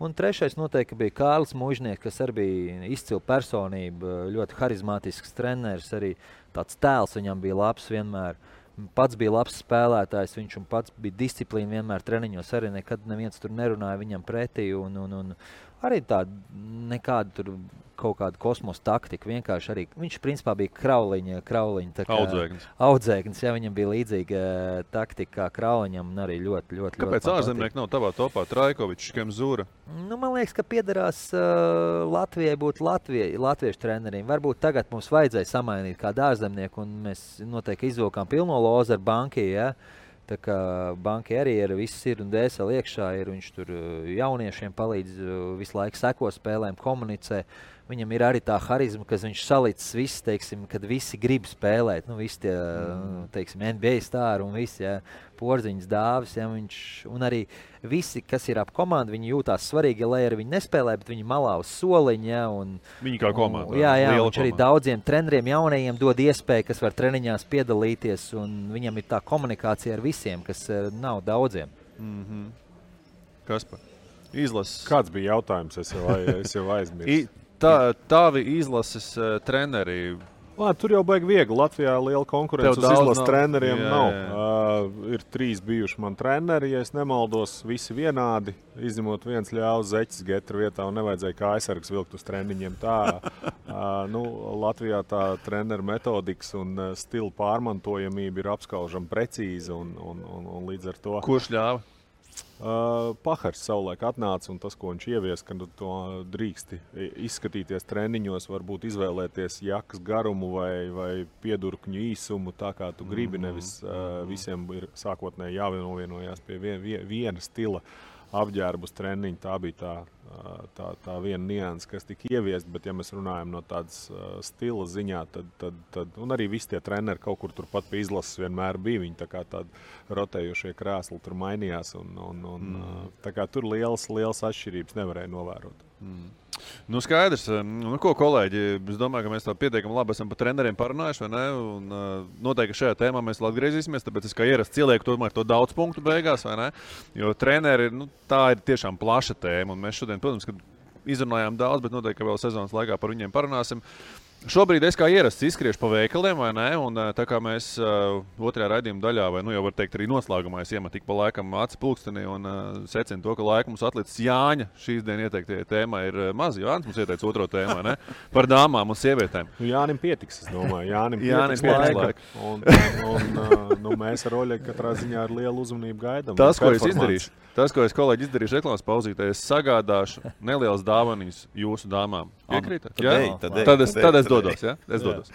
Un trešais noteikti bija Kārlis Mužnieks, kas arī bija izcila personība, ļoti harizmātisks treneris, arī tāds tēls viņam bija labs vienmēr. Pats bija labs spēlētājs, viņš un pats bija disciplīna vienmēr treniņos, arī nekad neviens tur nerunāja viņam pretī, un arī tāda nekāda tur kaut kāda kosmosa taktika, vienkārši arī, viņš principā bija Krauliņa tā kā audzēknis, ja viņam bija līdzīga taktika kā Krauliņam, un arī ļoti Kāpēc ārzemnieki nav tavā topā? Trajkovičs, Kemzūra? Nu, man liekas, ka piederās Latvijai būt latviešu treneriem. Varbūt tagad mums vajadzēja samainīt kādu ārzemnieku, un mēs noteikti izvilkām pilno lozu ar Banki, ja? Tā kā Banki arī ir viss ir un dēseli iekšā, viņš tur jauniešiem palīdz, visu laiku seko spēlēm, komunicē. Viņam ir arī tā harizma, ka viņš salicis viss, teiksim, kad visi grib spēlēt. Nu, visi tie, teiksim, NBA stāri un visi, ja, Porziņas dāvis, ja, un arī visi, kas ir ap komandu, viņi jūtās svarīgi, lai arī viņi nespēlē, bet viņi malā uz soliņa, ja, un viņi kā komanda. Jā, viņš arī daudziem treneriem jaunajiem dod iespēju, kas var treniņās piedalīties, un viņam ir tā komunikācija ar visiem, kas nav daudziem. Kaspar, izlases. Kāds bija jautājums? Es jau aizmirsu. Tavi izlases treneri. Tur jau baigi viegli. Latvijā liela konkurence uz izlases treneriem nav. Ir 3 bijuši man treneri, ja es nemaldos, visi vienādi. Izņemot viens ļaus Zeķis Getra vietā un nevajadzēja kā aizsargs vilkt uz treniņiem. Latvijā tā treneru metodikas un stila pārmantojamība ir apskaužama precīza un līdz ar to. Kurš ļāva? Pahars savulaik atnāca un tas, ko viņš ievies, ka to drīksti izskatīties treniņos, varbūt izvēlēties jakas garumu vai piedurkņu īsumu, tā kā tu gribi, nevis visiem ir sākotnēji jāvienojās pie viena stila apģērbus treniņu. Tā bija tā viena nianse, kas tika ieviest, bet ja mēs runājam no tādas stila ziņā, tad un arī visi tie treneri kaut kur turpat pie izlases vienmēr bija, viņi tā kā tādi rotējošie krēsli tur mainījās un tā kā tur lielas atšķirības nevarēja novērot. Nu, skaidrs. Nu, ko, kolēģi, es domāju, ka mēs tā pietiekami labi esam par treneriem parunājuši, vai ne? Un noteikti šajā tēmā mēs vēl atgriezīsimies, tāpēc es kā ierasts ielieku tomēr to daudz punktu beigās, vai ne? Jo treneri, tā ir tiešām plaša tēma, un mēs šodien, protams, ka izrunājām daudz, bet noteikti, ka vēl sezonas laikā par viņiem parunāsim. Šobrīd es kā ierasts izskriešu pa veikaliem, vai ne? Un tā kā mēs otrajā raidījuma daļā, vai jau var teikt arī noslēgumā, es iemetu tik pa laikam aci pulkstenī un secinu to, ka laika mums atlicis Jāņa. Šīs dienas ieteiktie tēmā ir maz. Jānis mums ieteica otro tēmu, vai ne? Par dāmām un sievietēm. Jānim pietiks, es domāju. Jānim pietiks laika. Un mēs ar Oļegu katrā ziņā ar lielu uzmanību gaidām. Tas, ko es kolēģi izdarīšu reklāmas pauzītē, es sagādāšu nelielas dāvaniņas jūsu dāmām. Piekrītat? Tad es dodos, ja? Es dodos.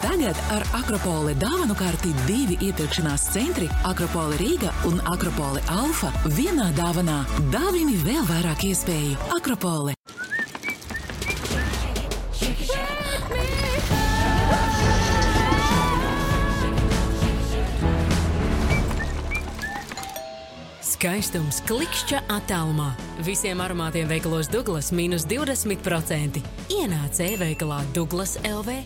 Tagad ar Akropole dāvanu karti 2 iepirkšanās centri Akropole Rīga un Akropole Alfa vienā dāvanā. Dāvini vēl vairāk iespēju. Akropole. Skaistums klikšķa attālumā. Visiem aromātiem veikalos Douglas mīnus 20%. Ienāc e-veikalā Douglas LV.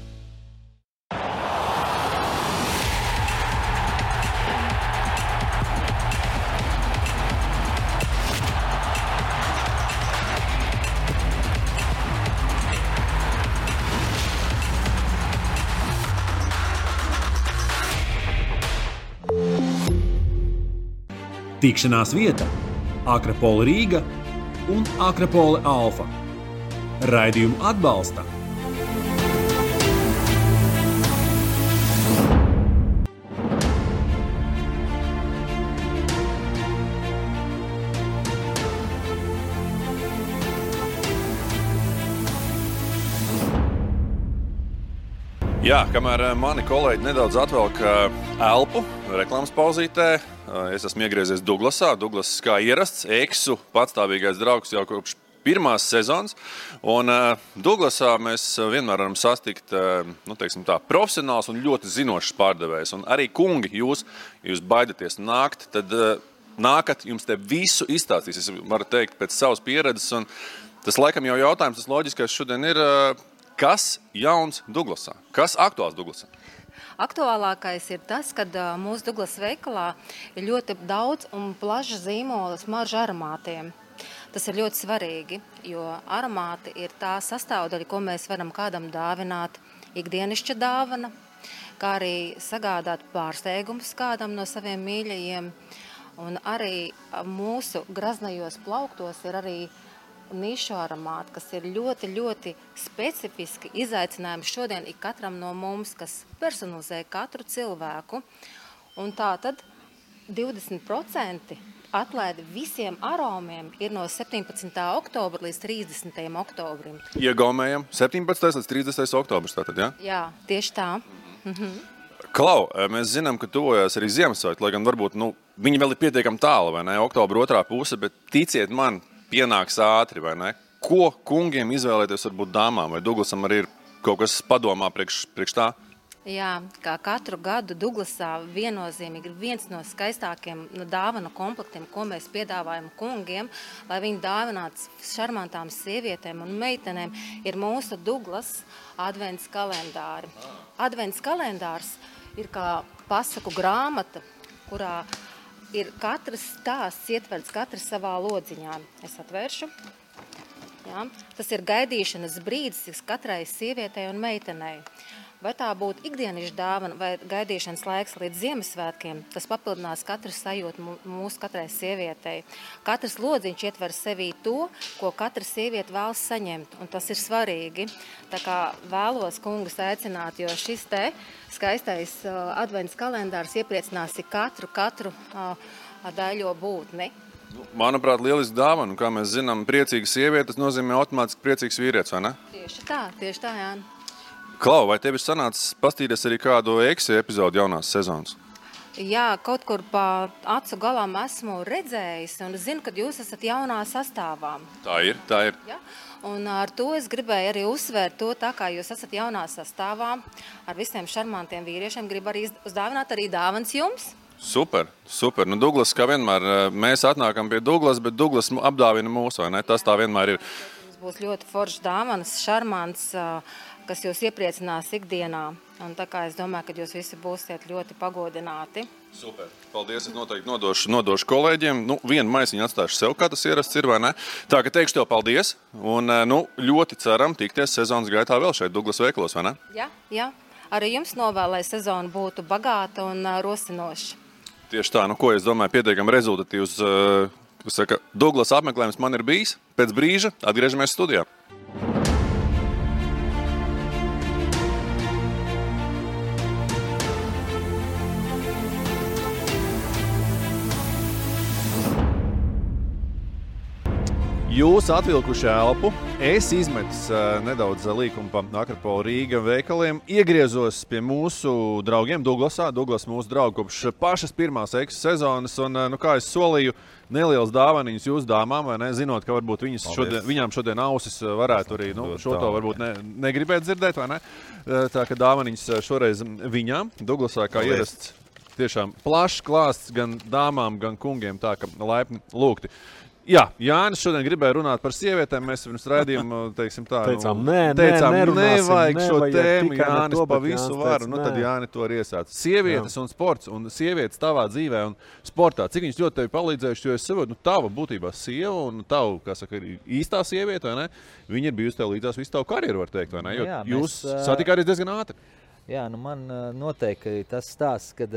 Tikšanās vieta Akropole Rīga un Akropole Alfa. Raidījumu atbalsta Jā, kamēr mani kolēģi nedaudz atvelk elpu reklāmas pauzītē, es esmu iegriezies Douglasā. Douglas kā ierasts, eksu patstāvīgais draugs jau kopš pirmās sezonas. Un Douglasā mēs vienmēr varam sastikt profesionāls un ļoti zinošs pārdevējs. Un arī kungi, jūs baidaties nākt, tad nākat, jums te visu izstāstīs. Es varu teikt pēc savas pieredzes. Un tas laikam jau jautājums, tas loģiskais šodien ir, kas jauns Douglasā? Kas aktuāls Douglasā? Aktuālākais ir tas, ka mūsu Douglas veikalā ir ļoti daudz un plaša zīmola smaržu aromātiem. Tas ir ļoti svarīgi, jo aromāti ir tā sastāvdaļa, ko mēs varam kādam dāvināt, ikdienišķa dāvana, kā arī sagādāt pārsteigumus kādam no saviem mīļajiem. Un arī mūsu graznajos plauktos ir arī nišu aromāti, kas ir ļoti, ļoti specifiski izaicinājumi šodien ik katram no mums, kas personalizē katru cilvēku. Un tā tad 20% atlaidi visiem aromiem ir no 17. oktobra līdz 30. oktobrim. Iegaumējam 17. līdz 30. oktobrs tātad, jā? Jā, tieši tā. Klau, mēs zinām, ka tuvojās arī Ziemassvētki, lai gan varbūt, viņi vēl ir pietiekami tālu, vai ne? Oktobra otrā puse, bet ticiet man, pienāks ātri, vai ne? Ko kungiem izvēlēties varbūt dāmām? Vai Douglasam arī ir kaut kas padomā priekš tā? Jā, kā katru gadu Douglasā viennozīmīgi ir viens no skaistākiem dāvanu komplektiem, ko mēs piedāvājam kungiem, lai viņi dāvinātu šarmantām sievietēm un meitenēm, ir mūsu Douglas advents kalendāri. Advents kalendārs ir kā pasaku grāmata, kurā ir katrs stāsts ietverts katrs savā lodziņā. Es atvēršu. Jā. Tas ir gaidīšanas brīdis katrai sievietei un meitenei. Vai tā būtu ikdienišķa dāvana vai gaidīšanas laiks līdz Ziemassvētkiem, tas papildinās katru sajūtu mūsu katrai sievietei. Katrs lodziņš ietver sevī to, ko katra sieviete vēlas saņemt, un tas ir svarīgi. Tā kā vēlos kungus aicināt, jo šis te skaistais advents kalendārs iepriecinās katru daļo būtni. Manuprāt, lieliski dāvana, kā mēs zinām, priecīga sieviete, tas nozīmē automātiski priecīgs vīrietis, vai ne? Tieši tā, Jā. Klau, vai tev ir sanācis pastīties arī kādu eksu epizodu jaunās sezonas? Jā, kaut kur pa acu galām esmu redzējis un zinu, ka jūs esat jaunā sastāvā. Tā ir. Ja? Un ar to es gribēju arī uzsvērt to, tā kā jūs esat jaunā sastāvā, ar visiem šarmantiem vīriešiem, gribu arī uzdāvināt arī dāvans jums. Super. Douglas, kā vienmēr, mēs atnākam pie Douglas, bet Douglas apdāvina mūs, vai ne? Tas tā vienmēr ir. Jums būs ļoti foršs dāvans, šarmants, kas jūs iepriecinās ikdienā. Un tā kā es domāju, ka jūs visi būsiet ļoti pagodināti. Super. Paldies, es noteikti nodošu kolēģiem. Vienu maisiņu atstāšu sev, kā tas ierasts ir, vai ne? Tā, ka teikšu tev paldies. Un ļoti ceram tikties sezonas gaitā vēl šeit Douglas veikalos, vai ne? Jā. Arī jums novēlu, lai sezona būtu bagāta un rosinoša. Tieši tā, ko es domāju, pietiekami rezultatīvs Douglas apmeklējums man ir bijis. Pēc brīža atgriežamies studijā. Jūs atvilkuši elpu, es izmetis nedaudz līkumu pa Akropole Rīga veikaliem, iegriezos pie mūsu draugiem Douglasā. Douglas mūsu draugi kopš pašas pirmās eksu sezonas, un, kā es solīju, neliels dāvaniņas jūsu dāmām, vai ne, zinot, ka varbūt viņām šodien ausis varētu arī, šo to varbūt negribēt dzirdēt, vai ne? Tā, ka dāvaniņas šoreiz viņām, Douglasā kā ierasts. tiešām plašs klāsts gan dāmām, gan kungiem, tā ka laipni lūgti. Jā, Jānis šodien gribēja runāt par sievietēm. Mēs pirms raidījuma teicām, nevajag šo tēmu. Jānis pa visu varu. Tad Jāni to arī iesāca. Sievietes un sports un sievietes tavā dzīvē un sportā. Cik viņas ļoti tevi palīdzējuši, jo es saprotu, tava būtībā sieva un tavu, kā saka, īstā sieviete, vai ne? Viņa ir bijusi tev līdzās visu tavu karjeru, var teikt, vai ne? Jo jūs satikāties diezgan ātri. Jā, man noteikti tas stāsts, kad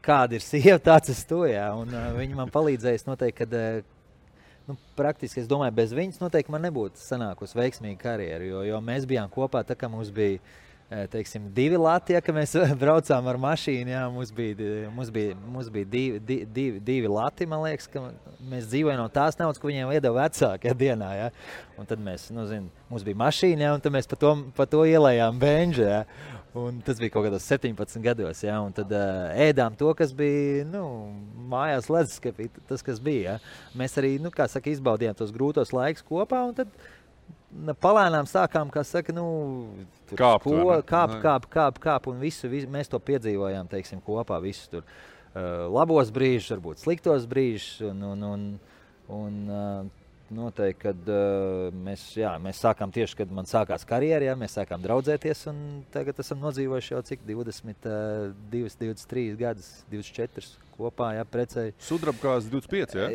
kāda ir sieva, tāds es to, jā. Un viņa man palīdzējas noteikti, kad praktiski, es domāju, bez viņas noteikti man nebūtu sanākusi veiksmīga karjeru, jo mēs bijām kopā, tā kā mums bija, teiksim, 2 lati, ja, ka mēs braucām ar mašīnu, jā, mums bija 2 lati, man liekas, ka mēs dzīvojam no tās naudas, ko viņiem iedeva vecāki, ja, dienā, jā. Un tad mēs, mums bija mašīna, jā, un tad mēs pa to ielējām benžu, jā. Un tas bija kaut kādos 17 gados, ja, un tad ēdām to, kas bija, mājās ledusskapī, tas, kas bija, ja. Mēs arī, kā saka, izbaudījām tos grūtos laikus kopā, un tad palēnām sākām, kā saka, kāp, un visu, mēs to piedzīvojām, teiksim, kopā, visus tur labos brīžus, varbūt sliktos brīžus, un noteikti, kad mēs sākām tieši, kad man sākās karjera, ja, mēs sākām draudzēties, un tagad esam nodzīvojuši jau cik 22, 23 gadus, 24 kopā, jā, precēji. Sudrabkās 25, jā?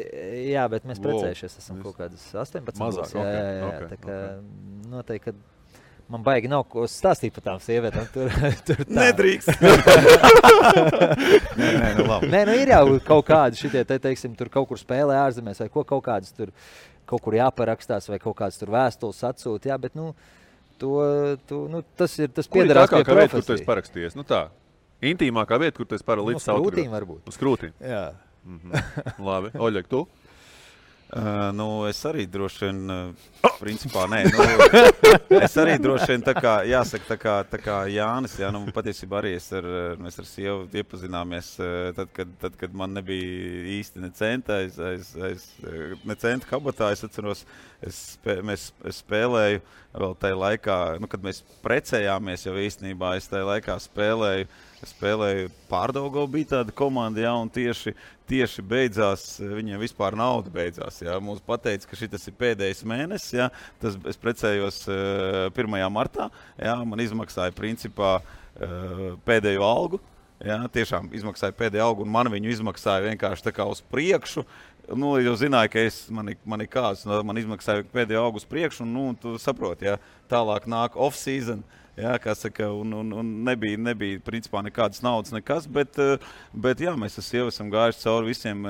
Jā, bet mēs precējušies, esam kaut kādas 18. Mazāk, jā, tā kā noteikti, kad man baigi nav ko stāstīt par tām sievietēm. Tur tā. Nedrīkst. Labi. Nē, ir jau kaut kādi šitie, teiksim, tur kaut kur spēlē ārzemēs, vai kaut kādas tur, kaut kur jāparakstās, vai kaut kādas tur vēstules atsūt, jā, bet, tas piederās pie profesijas. Vieta, kur tu esi parakstījies, tā, intīmākā vieta, kur tu esi līdz autogrāfu. Uz krūtīm varbūt. Uz krūtīm? Jā. Labi, Oļeg, tu? Es arī droši vien, principā, nē, es arī droši vien, jāsaka, tā kā Jānis, jā, patiesībā arī mēs ar sievu iepazināmies, tad, kad man nebija īsti ne centa, ne centa kabatā, es atceros, es spēlēju vēl tajā laikā, kad mēs precējāmies jau īstenībā, es tajā laikā spēlēju Pārdaugavā, bija tāda komanda, jā, un tieši beidzās, viņiem vispār nauda beidzās, jā. Mums pateica, ka šitas ir pēdējais mēnesis, jā. Es precējos 1. martā, jā, man izmaksāja principā pēdējo algu, jā, tiešām izmaksāja pēdējo algu, un man viņu izmaksāja vienkārši tā kā uz priekšu. Jau zināju, ka man ir kāds, man izmaksāja pēdējo algu uz priekšu, un tu saproti, jā, tālāk nāk off-season. Jā, kā saka, un nebija principā nekādas naudas, nekas, bet jā, mēs ar sievu esam gājuši cauri visiem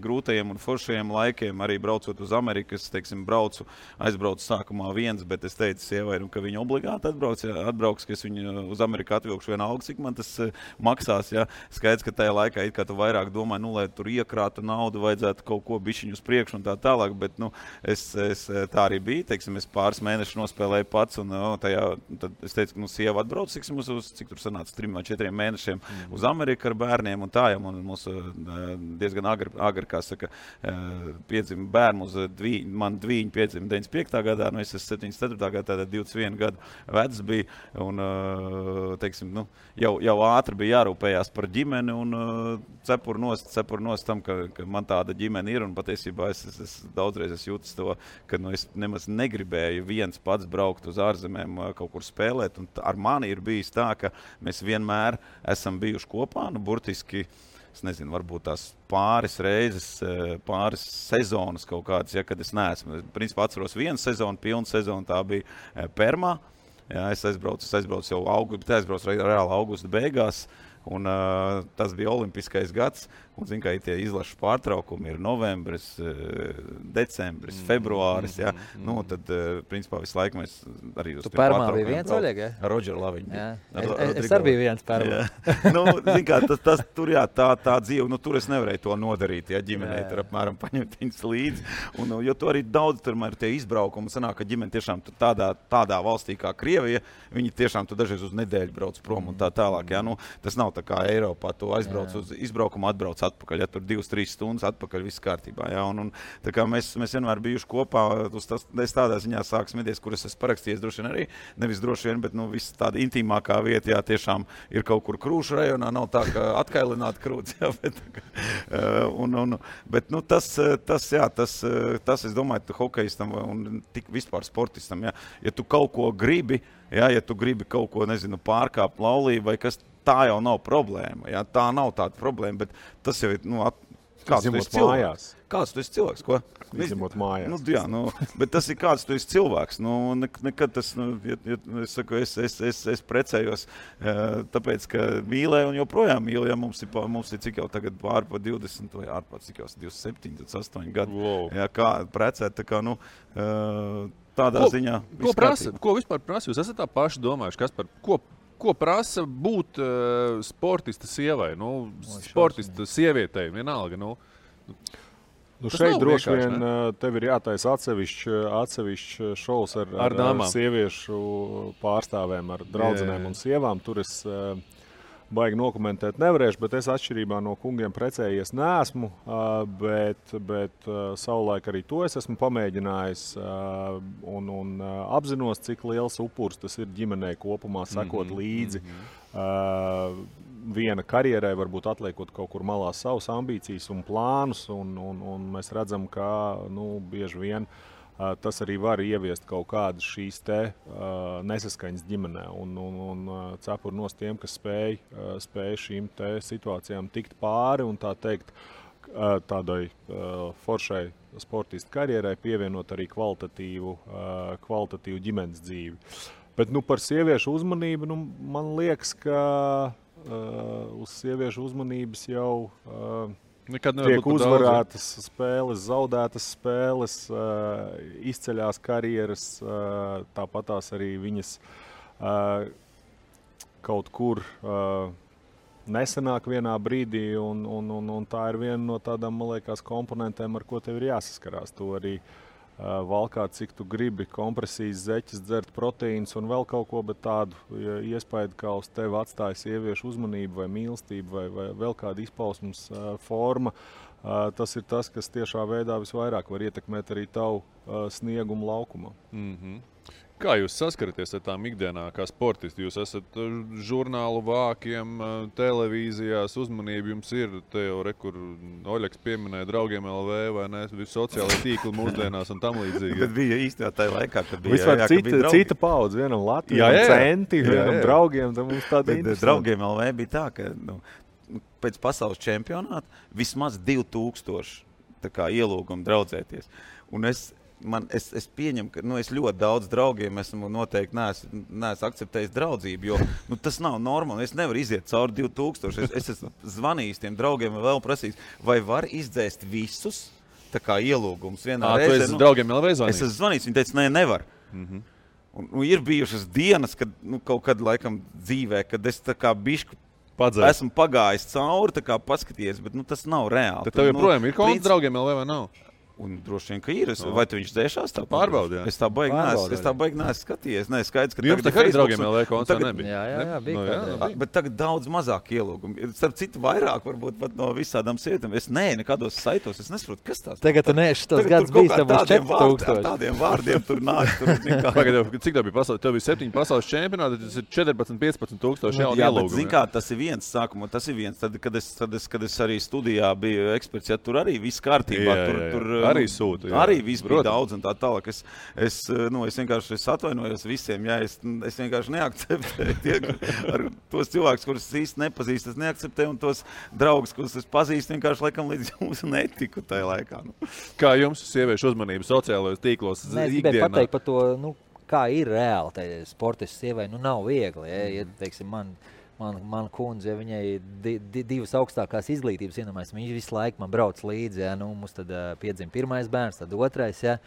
grūtajiem un foršajiem laikiem, arī braucot uz Ameriku, es, teiksim, aizbraucu sākumā viens, bet es teicu sievai, ka viņa obligāti atbrauks, ka es viņu uz Ameriku atvilkšu vienalga, cik man tas maksās, jā. Skaidrs, ka tajā laikā it kā tu vairāk domāji, lai tur iekrātu naudu, vajadzētu kaut ko bišķiņu uz priekšu un tā tālāk, bet, es tā arī bija, teiksim, es pāris mēnešus nospēlēju pats, un tad es teicu, ka sieva atbrauc, cik tur sanāca 3 vai 4 mēnešiem uz Ameriku ar bērniem un tā, un mums diezgan agri, kā saka, piedzima bērnu, man dvīņi piedzima 95. gadā, es esmu 74. gadā, tātad 21 gadu vecs bija, un, teiksim, jau ātri bija jārūpējās par ģimeni, un cepur nost tam, ka man tāda ģimene ir, un patiesībā es daudzreiz jūtas to, ka es nemaz negribēju viens pats braukt uz ārzemēm kaut kur spēlēt, un ar mani ir bijis tā, ka mēs vienmēr esam bijuši kopā, burtiski, es nezinu, varbūt tās pāris reizes, pāris sezonas kaut kādas, ja, kad es neesmu. Principā atceros vienu sezonu, pilnu sezonu, tā bija Permā, jā, es aizbraucu jau reāli augusta beigās, un tas bija olimpiskais gads, un, zin, kā tie izlašu pārtraukumi ir novembris, decembris, februāris, jā. Tad, principā, visu laiku mēs arī uz tu Permā bija viens, Oļeg, ja? Roger Laviņ bija. Es arī biju viens Permā. Zin kā, tas tur, jā, tā dzīve, tur es nevarēju to nodarīt, ja ģimenei tur apmēram paņemt viņas līdzi, un, jo tu arī daudz tur ir tie izbraukumi, sanāk, ka ģimene tiešām tādā valstī kā Krievija, viņi tiešām tu dažreiz uz nedēļu brauc prom un tā tālāk, jā, tas nav nav tā kā Eiropā, tu aizbrauc uz izbraukumu, atbrauc atpakaļ, ja tur 2-3 stundas atpakaļ, viss kārtībā, jā, un tā kā mēs vienmēr bijuši kopā, es tādā ziņā sāku smities, kur es esmu parakstījies droši vien arī, nevis droši vien, bet, viss tāda intīmākā vieta, jā, tiešām ir kaut kur Krūšu rajonā, nav tā, ka atkailināt krūts, jā, bet tas, es domāju, hokejistam un tik vispār sportistam, jā, ja tu kaut ko gribi, jā, ja tu gribi kaut ko, nezinu, pārkāpt laulību vai kas, tā jau nav problēma, jā, tā nav tāda problēma, bet tas jau ir, kāds tu esi cilvēks? Kāds tu esi cilvēks, ko? Izņemot mājās. Jā, bet tas ir kāds tu esi cilvēks, nekad tas, es saku, es precējos, tāpēc, ka mīlēju un joprojām mīlu, ja mums ir cik jau tagad ārpa 20 vai ārpa cik jau 27, 28 gadu, jā, kā precēt, tā kā, tādā ziņa. Ko vispār prasa? Jūs esat tā paši domājuši, kas par ko prasa būt sportista sievai, sportista sievietei, vienalga, šeit droši vien tev ir jātaisa atsevišķs šovs ar sieviešu pārstāvēm, ar draudzenēm un sievām. Tur es baigi nokomentēt nevarēšu, bet es atšķirībā no kungiem precējies neesmu, bet savulaik arī to es esmu pamēģinājis un apzinos, cik liels upurs tas ir ģimenei kopumā sekot līdzi. Viena karjerai, varbūt atliekot kaut kur malā savas ambīcijas un plānus, un mēs redzam, ka bieži vien tas arī var ieviest kaut kādas šīs nesaskaņas ģimenē. Un cepur nos tiem, kas spēj šīm situācijām tikt pāri un tā teikt tādai foršai sportistu karjerai pievienot arī kvalitatīvu ģimenes dzīvi. Bet par sieviešu uzmanību, man liekas, ka uz sieviešu uzmanības jau tiek uzvarētas spēles, zaudētas spēles, izceļās karjeras, tāpatās arī viņas kaut kur nesenāk vienā brīdī, un tā ir viena no tādām, man liekas, komponentēm, ar ko tev ir jāsaskarās. To arī valkāt, cik tu gribi, kompresijas, zeķes, dzert proteīnus un vēl kaut ko, bet tādu iespēju, kā uz tevi atstāja sieviešu uzmanību vai mīlestību vai vēl kāda izpausmes forma, tas ir tas, kas tiešā veidā visvairāk var ietekmēt arī tavu sniegumu laukumā. Kā jūs saskaraties ar tām ikdienā, kā sportisti? Jūs esat žurnālu vākiem, televīzijās, uzmanība jums ir, te jau kur Oļeks pieminēja draugiem LV vai ne, sociālai tīkli mūsdienās un tam līdzīgi. Bet bija īstenībā tajā laikā, kad bija, vispār cita paudze, vienam Latvijam centi, vienam draugiem, tad mums tāda interesanta. Draugiem LV bija tā, ka pēc pasaules čempionāta vismaz 2000 tā kā ielūgumu draudzēties. Un es pieņemu, ka es ļoti daudz draugiem esmu noteikti neesmu akceptējis draudzību, jo tas nav normāli. Es nevaru iziet cauri 2000. Es esmu zvanījis tiem draugiem un vēl prasījis, vai var izdzēst visus tā kā ielūgumus vienā reizē. Tu esi draugiem vēl zvanījis? Es esmu zvanījis, viņi teica, nevar. Un ir bijušas dienas, kad kaut kad laikam dzīvē, kad es tā kā bišku esmu pagājis cauri, tā kā paskatījies, bet tas nav reāli. Tad tev joprojām ir kaut draugiem LV vai nav? Un droši vien, ka ir. Vai tu viņš dzēšās tā? Pārbaudījā. Es tā baigi neesmu skatījies. Nē, skaidrs, ka jums tagad arī draugiem LV koncerts nebija. Jā, bija. Bet tagad daudz mazāk ielūgumu. Starp citu, vairāk varbūt pat no visādām sievietēm. Es nekādos saitos. Es nesaprotu, kas tās. Tagad tu neesi tos gads bijis, tev būs 4000. Tādiem vārdiem tur nāk. Cik tev bija pasaules? Tev bija 7 pasaules čempionāti, tas ir 14-15 tūkstoši jaunu ielūgumu. Zin kā, tas ir viens sākumā, tas ir viens. Tad, kad es arī studijā biju eksperts, ja tur arī viss kārtībā. Arī sūta. Jā. Arī viss bija daudz un tā tālāk. Es vienkārši atvainojos visiem. Jā, es vienkārši neakceptēju ar tos cilvēkus, kurus es īsti nepazīstu. Es neakceptēju un tos draugus, kurus es pazīstu, vienkārši laikam līdz jums netiku tajā laikā. Kā jums sieviešu uzmanība sociālajos tīklos ikdienā? Es gribēju pateikt par to, kā ir reāli tai sportistu sievai. Nav viegli. Ja, teiksim, man kundze, ja viņai divas augstākās izglītības ienomājas, viņa visu laiku man brauc līdzi, ja, mums tad piedzima pirmais bērns, tad otrais, ja.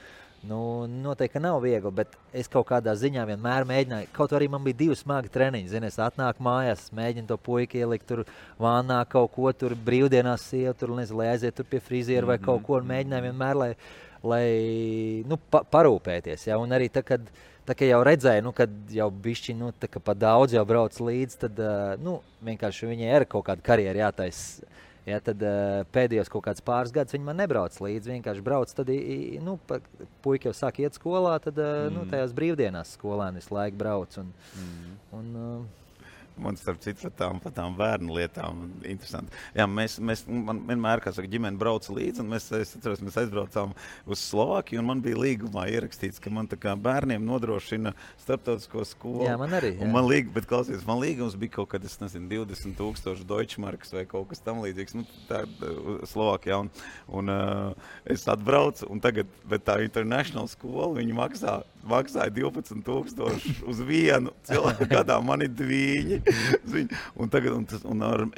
Noteikti nav viegli, bet es kaut kādā ziņā vienmēr mēģināju, kaut arī man bija 2 smagi treniņi, es atnāku mājās, mēģinu to puiku ielikt tur vānā kaut ko, tur brīvdienās sievu, tur, nezinu, lai aiziet tur pie friziera vai kaut ko, un mēģināju vienmēr, lai parūpēties, ja, un arī tad, kad tā kā jau redzēju, kad jau bišķi, tā kā pa daudz jau brauc līdz, tad, vienkārši viņai ir kaut kāda karjera jātais. Ja, tad pēdējos kaut kāds pāris gadus viņi man nebrauc līdzi, vienkārši brauc, tad, puika jau sāk iet skolā, tad, tajās brīvdienās skolēni visu laiku brauc. Man starp citu par tām bērnu lietām interesanti. Jā, man vienmēr, kā saka, ģimene brauca līdzi, un mēs aizbraucām uz Slovākiju, un man bija līgumā ierakstīts, ka man tā kā bērniem nodrošina starptautisko skolu. Jā, man arī. Jā. Un man līgums bija kaut kad, 20,000 Deutschmarkas vai kaut kas tam līdzīgs, tā Slovākijā, un es atbraucu, un tagad, bet tā International skola, viņi maksāja 12,000 uz vienu cilvēku gadā, man ir dviņi. Un tagad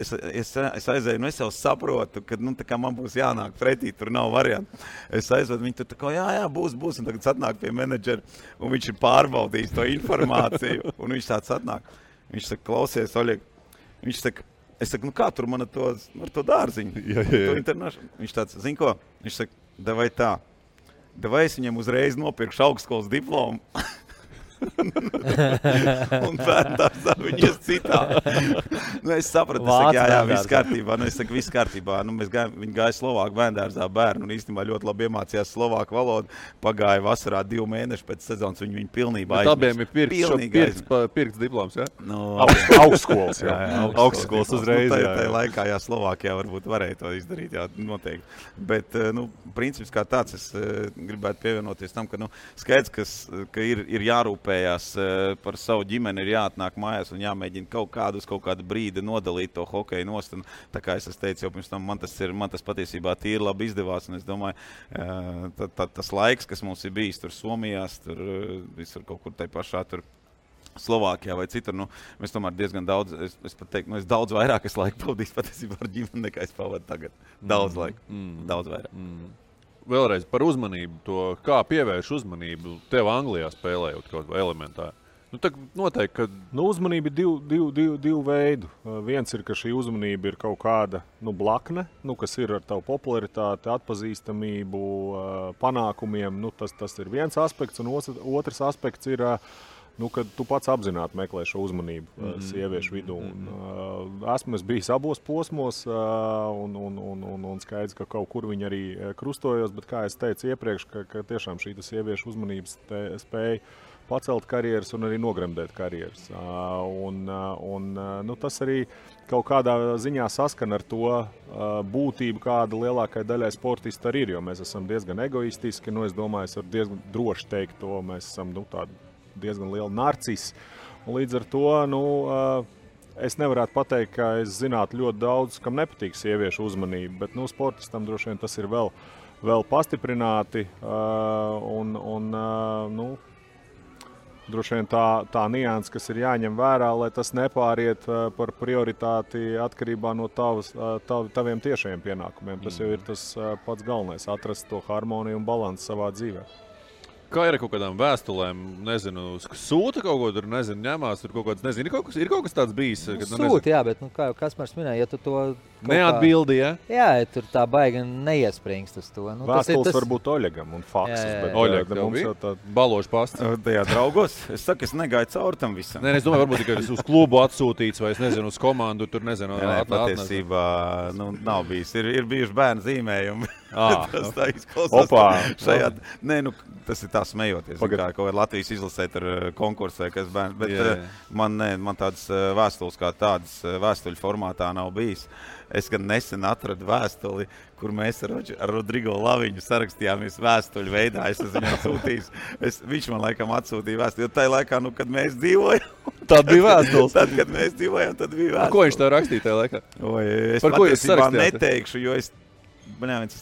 es aizēju, es jau saprotu, ka tā kā man būs jānāk pretī, tur nav variantu. Es aizvedu, viņi tur tā kā, jā, būs, un tagad atnāk pie menedžera, un viņš ir pārbaudījis to informāciju, un viņš tāds atnāk. Viņš saka, klausies, Oļeg, viņš saka, es saku, kā tur man ar to dārziņu? Viņš tāds, zin ko? Viņš saka, davai es viņam uzreiz nopirkšu augstskolas diplomu. Un bērndārzā viņi ies citā. Es sapratu, viss kārtībā. Viss kārtībā. Viņi gāja Slovāku bērndārzā bērnu un īstenībā ļoti labi iemācījās slovāku valodu. Pagāja vasarā 2 mēneši pēc sezonas, viņi pilnībā aizmirst. Abiem ir pirkts diploms, jā? Augstskolas, jā. Augstskolas uzreiz, jā. Tajā laikā, Slovākijā varbūt varēja to izdarīt, jā, noteikti. Bet, princips kā tāds, es gribētu pievienoties tam, ka, skaidrs, ka ir jārūpējās par savu ģimeni, ir jāatnāk mājās un jāmēģina kaut kādu brīdi nodalīt to hokeju nost. Un, tā kā es teicu jau pirms tam, man tas patiesībā tīri labi izdevās. Un es domāju, tas laiks, kas mums ir bijis tur Somijās, tur visur kaut kur tai pašā tur Slovākijā vai citur, mēs tomēr diezgan daudz, es pat teiktu, es daudz vairāk laiku pavadīju patiesībā ar ģimeni, nekā es pavadu tagad. Daudz laika, daudz vairāk. Vēlreiz par uzmanību, to kā pievērš uzmanību tev Anglijā spēlējot kaut vai elementāri. Noteikti, ka uzmanība ir divu veidu. Viens ir, ka šī uzmanība ir kaut kāda blakne, kas ir ar tavu popularitāti, atpazīstamību, panākumiem. Tas ir viens aspekts, un otrs aspekts ir, kad tu pats apzināti meklē šo uzmanību sieviešu vidū. Esmu bijis abos posmos, un skaidrs, ka kaut kur viņi arī krustojos, bet, kā es teicu iepriekš, ka tiešām šī sieviešu uzmanības spēja pacelt karjeras un arī nogremdēt karjeras. Tas arī kaut kādā ziņā saskan ar to būtību, kāda lielākai daļai sportisti arī ir, jo mēs esam diezgan egoistiski, es domāju, es varu diezgan droši teikt to, mēs esam tādi diezgan liela narcisi. Un līdz ar to, es nevarētu pateikt, ka es zinātu ļoti daudz, kam nepatīk sieviešu uzmanība, bet sportistam droši vien tas ir vēl pastiprināti. Droši vien tā nianse, kas ir jāņem vērā, lai tas nepāriet par prioritāti atkarībā no taviem tiešajiem pienākumiem. Tas jau ir tas pats galvenais, atrast to harmoniju un balansu savā dzīvē. Kā ir ar kaut kādām vēstulēm, sūta kaut ko tur, ņemās, tur kaut kāds, ir kaut kas tāds bijis? Sūta, jā, bet, kā jau Kaspars minēja, ja tu to neatbildi, ja? Jā, tur tā baigi neiespringst uz to. Vēstules varbūt Oļegam un faksis, bet Oļeg, mums jau tā balošu pasts. Tajā draugos, es saku, es negāju cauri tam visam. Es domāju, varbūt tikai uz klubu atsūtīts vai, uz komandu, tur patiesībā, nav bijis. Ir bijuši bērnu zīmējumi. Tas tā izklausās. Opā. Tas ir tā smejoties. Kā kaut kādā Latvijas izlasē tur konkursē, kas bērns. Bet man tādas vēstules kā tādas vēstuļu formātā nav bijis. Es gan nesen atradu vēstuli, kur mēs ar Rodrigo Laviņu sarakstījāmies vēstuļu veidā. Es esmu viņam sūtījis. Viņš man laikam atsūtīja vēstuli, jo tajā laikā, kad mēs dzīvojam. Tad bija vēstules. Tad, kad mēs dzīvojam, tad bija vēstules. Ko viņš tev rakstīja tajā laikā? Es patiesībā neteikšu, jo es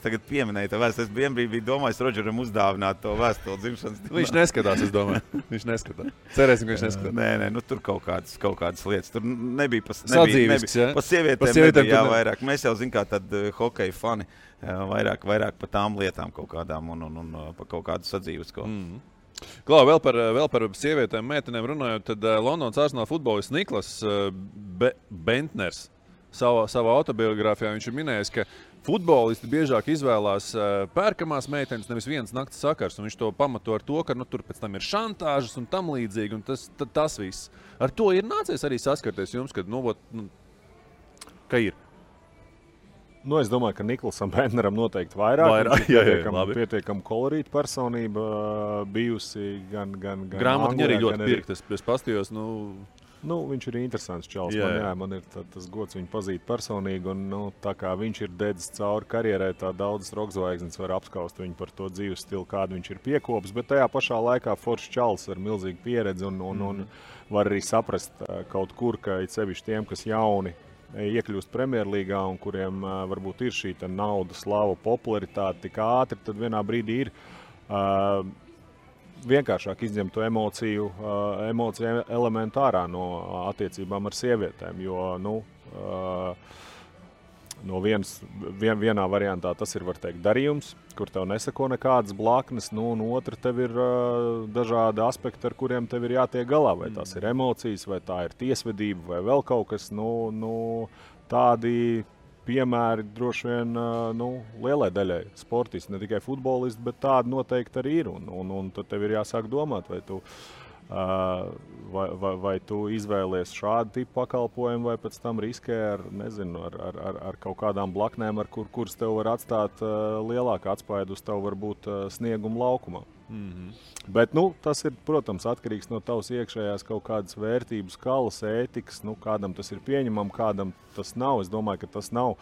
tagad pieminēju to vēstuli. Es biju domājis Rodžeram uzdāvināt to vēstuli dzimšanas dienā. Viņš neskatās, es domāju. Viņš neskatās. Cerēsim, ka viņš neskatās. Nē, tur kaut kādas lietas. Tur nebija pa pa sievietēm jā, vairāk. Mēs jau zinām, kā tad hokeja fani vairāk pa tām lietām kaut kādām un pa kaut kādu sadzīves. Klau, vēl par sievietēm, meitenēm runājot, tad Londonas Arsenal futbolists Niklas Bentners savā autobiogrāfijā viņš ir minējis, ka futbolisti biežāk izvēlās pērkamās meitenes, nevis vienas nakts sakars, un viņš to pamato ar to, ka tur pēc tam ir šantāžas un tam līdzīgi, un tas viss. Ar to ir nācies arī saskarties jums, kad, ka ir? Es domāju, ka Niklasam Bentneram noteikti vairāk. Pietiekam kolorīta personība bijusi gan grāmatiņa arī ļoti pirkt, es pastījos, viņš ir interesants čals. Man ir tas gods viņu pazīt personīgi, un tā kā viņš ir dedzis cauri karjerai, tā daudzas rokzvaigznes var apskaust viņu par to dzīves stilu, kādu viņš ir piekopis, bet tajā pašā laikā foršs čals ar milzīgu pieredzi un var arī saprast kaut kur, ka it sevišķi tiem, kas jauni iekļūst Premjerlīgā un kuriem varbūt ir šī nauda, slava, popularitāte tik ātri, tad vienā brīdī ir vienkāršāk izņemt to emociju elementu ārā no attiecībām ar sievietēm, jo no vienā variantā tas ir, var teikt, darījums, kur tev nesako nekādas blaknes, un otra tev ir dažādi aspekti, ar kuriem tev ir jātiek galā, vai tās ir emocijas, vai tā ir tiesvedība, vai vēl kaut kas, tādi piemēri droši vien lielai daļai sportisti, ne tikai futbolisti, bet tādi noteikti arī ir. Un tad tev ir jāsāk domāt, vai tu izvēlies šādu tipu pakalpojumu, vai pēc tam riskē ar kaut kādām blaknēm, kuras tev var atstāt lielāku atspaidu uz tev varbūt snieguma laukumā. Bet tas ir, protams, atkarīgs no tavas iekšējās kaut kādas vērtības skalas, ētikas, kādam tas ir pieņemam, kādam tas nav. Es domāju, ka tas nav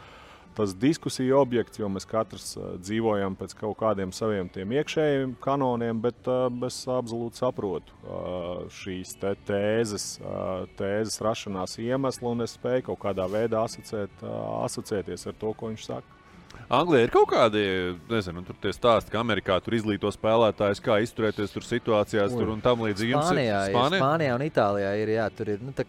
tas diskusiju objekts, jo mēs katrs dzīvojam pēc kaut kādiem saviem tiem iekšējiem kanoniem, bet es absolūti saprotu šīs tēzes rašanās iemeslu, un es spēju kaut kādā veidā asociēties ar to, ko viņš saka. Anglijā ir kaut kādi, tur tie stāsti, ka Amerikā tur izglīto spēlētājus, kā izturēties tur situācijās tur un tam līdzīgi. Spānijā un Itālijā ir, tur ir, tā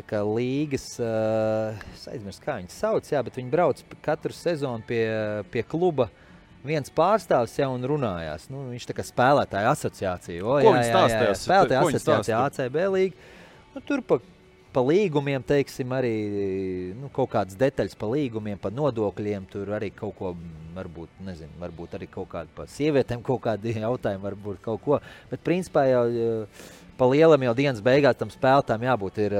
kā līgas, es aizmirstu, kā viņas sauc, bet viņi brauc katru sezonu pie kluba viens pārstāvs un runājās. Viņš tā kā spēlētāja asociācija. Ko viņi stāstījās? Spēlētāja asociācija ACB līga. Tur pa līgumiem, teiksim, arī kaut kādas detaļas pa līgumiem, pa nodokļiem, tur arī kaut ko, varbūt arī kaut kādi pa sievietēm kaut kādi jautājumi, varbūt kaut ko. Bet principā jau pa lielam jau dienas beigās tam spēlētājiem jābūt ir,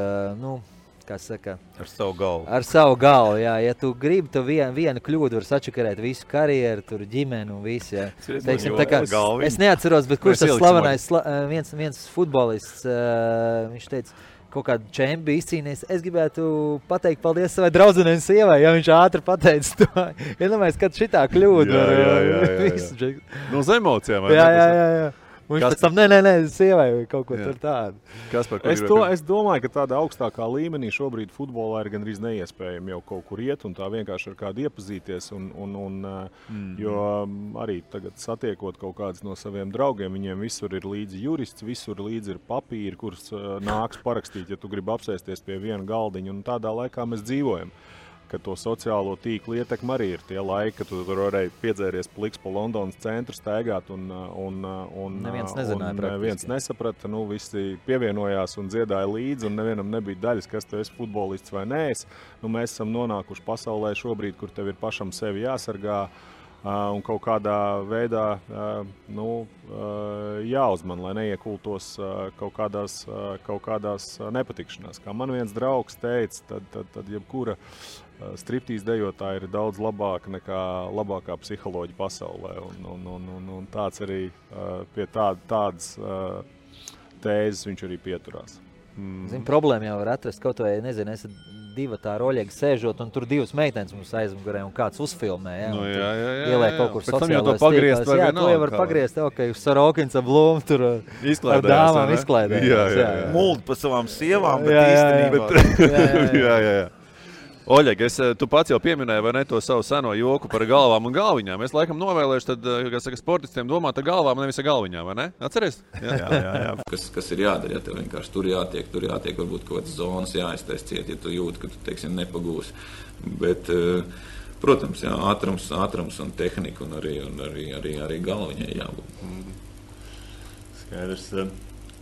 kā saka... Ar savu galvu. Ar savu galvu, jā. Ja tu gribi, tu vienu kļūdu var sačakarēt visu karjeru, tur ģimeni un visu, jā. Teiksim, tā kā, es neatceros, bet kurš tas slavenais, viens futbolists, viņš teica, kaut kādu čempi izcīnījis. Es gribētu pateikt paldies savai draudzenei un sievai, ja viņš ātri pateica to. Iedomājies, kad šitā kļūda. Jā. No uz emocijām. Jā. Viņš pēc tam, nē, sievai kaut ko tur tādu. Es domāju, ka tādā augstākā līmenī šobrīd futbolā ir gandrīz neiespējami jau kaut kur iet un tā vienkārši ar kādu iepazīties. Jo arī tagad satiekot kaut kādus no saviem draugiem, viņiem visur ir līdzi jurists, visur līdzi ir papīri, kurus nāks parakstīt, ja tu gribi apsēsties pie viena galdiņa. Un tādā laikā mēs dzīvojam. Ka to sociālo tīklu ietekmi arī ir tie laiki, kad tu tur varēji piedzēries pliks pa Londonas centru staigāt un neviens nesaprata, visi pievienojās un dziedāja līdzi un nevienam nebija daļas, kas tu esi futbolists vai neesi. Mēs esam nonākuši pasaulē šobrīd, kur tev ir pašam sevi jāsargā un kaut kādā veidā jāuzman, lai neiekultos kaut kādās nepatikšanās. Kā man viens draugs teica, tad jebkura striptīz dejotāja ir daudz labāka nekā labākā psiholoģija pasaulē. Un tāds arī pie tādas tēzes viņš arī pieturās. Problēma jau var atrast kaut vai, esat divi tā roļiegi sēžot, un tur divas meitenes mums aizmugurē, un kāds uzfilmē, ieliek kaut kur sociālos tīklos. To jau var pagriezt, ka jūs Sorokins ar Blūmu tur ar dāmām izklaidējās. Muldi pa savām sievām, bet īstenībā. Jā. Oļeg, tu pats jau pieminēji, vai ne, to savu seno joku par galvām un galviņām. Es laikam novēlēšu tad, sportistiem domāt ar galvām, nevis ar galviņām, vai ne? Atceries? Jā. Kas ir jādara, ja tev vienkārši tur jātiek, varbūt kaut kādas zonas jāiztais ciet, ja tu jūti, ka tu, teiksim, nepagūsi. Bet, protams, jā, ātrums un tehnika un arī galviņai jābūt. Skaidrs.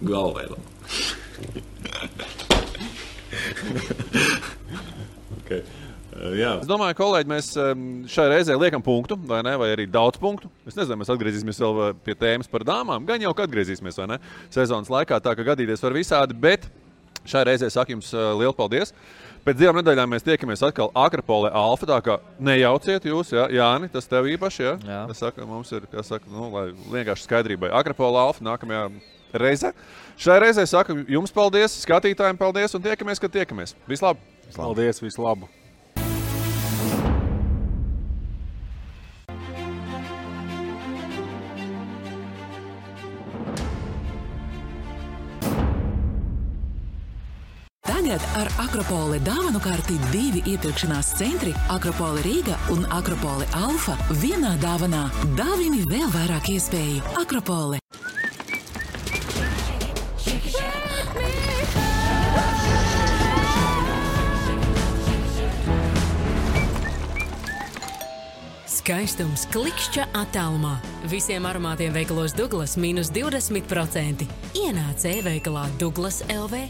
Galvēlam. Okay. Jā. Es domāju, kolēģi, mēs šai reizē liekam punktu, vai ne? Vai arī daudz punktu. Es nezinu, mēs atgriezīsimies vēl pie tēmas par dāmām. Gan jau, ka atgriezīsimies, vai ne? Sezonas laikā tā, ka gadīties var visādi, bet šai reizē saku jums lielu paldies. Pēc 2 nedēļām mēs tiekamies atkal Akropolē Alfa, tā kā nejauciet jūs, ja? Jāni, tas tev īpaši, ja? Jā. Tas saka, mums ir, lai vienkārši skaidrībai. Akropolē Alfa nākamajā reizē. Šai reizē saku jums paldies, skatītājiem paldies un tiekamies, kad tiekamies. Vislabāk! Paldies, vislabāk! Tagad ar Akropole dāvanu karti 2 iepirkšanās centri Akropole Rīga un Akropole Alfa vienā dāvanā. Dāvini vēl vairāk iespēju. Akropole. Skaistums klikšķa attālumā. Visiem aromātiem veikalos Douglas mīnus 20%. Ienāc e-veikalā Douglas LV.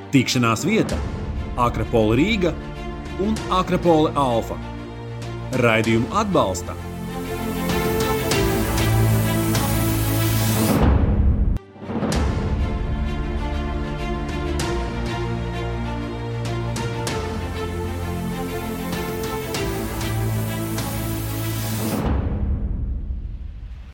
Tikšanās vieta Akropole Rīga un Akropole Alfa. Raidījumu atbalsta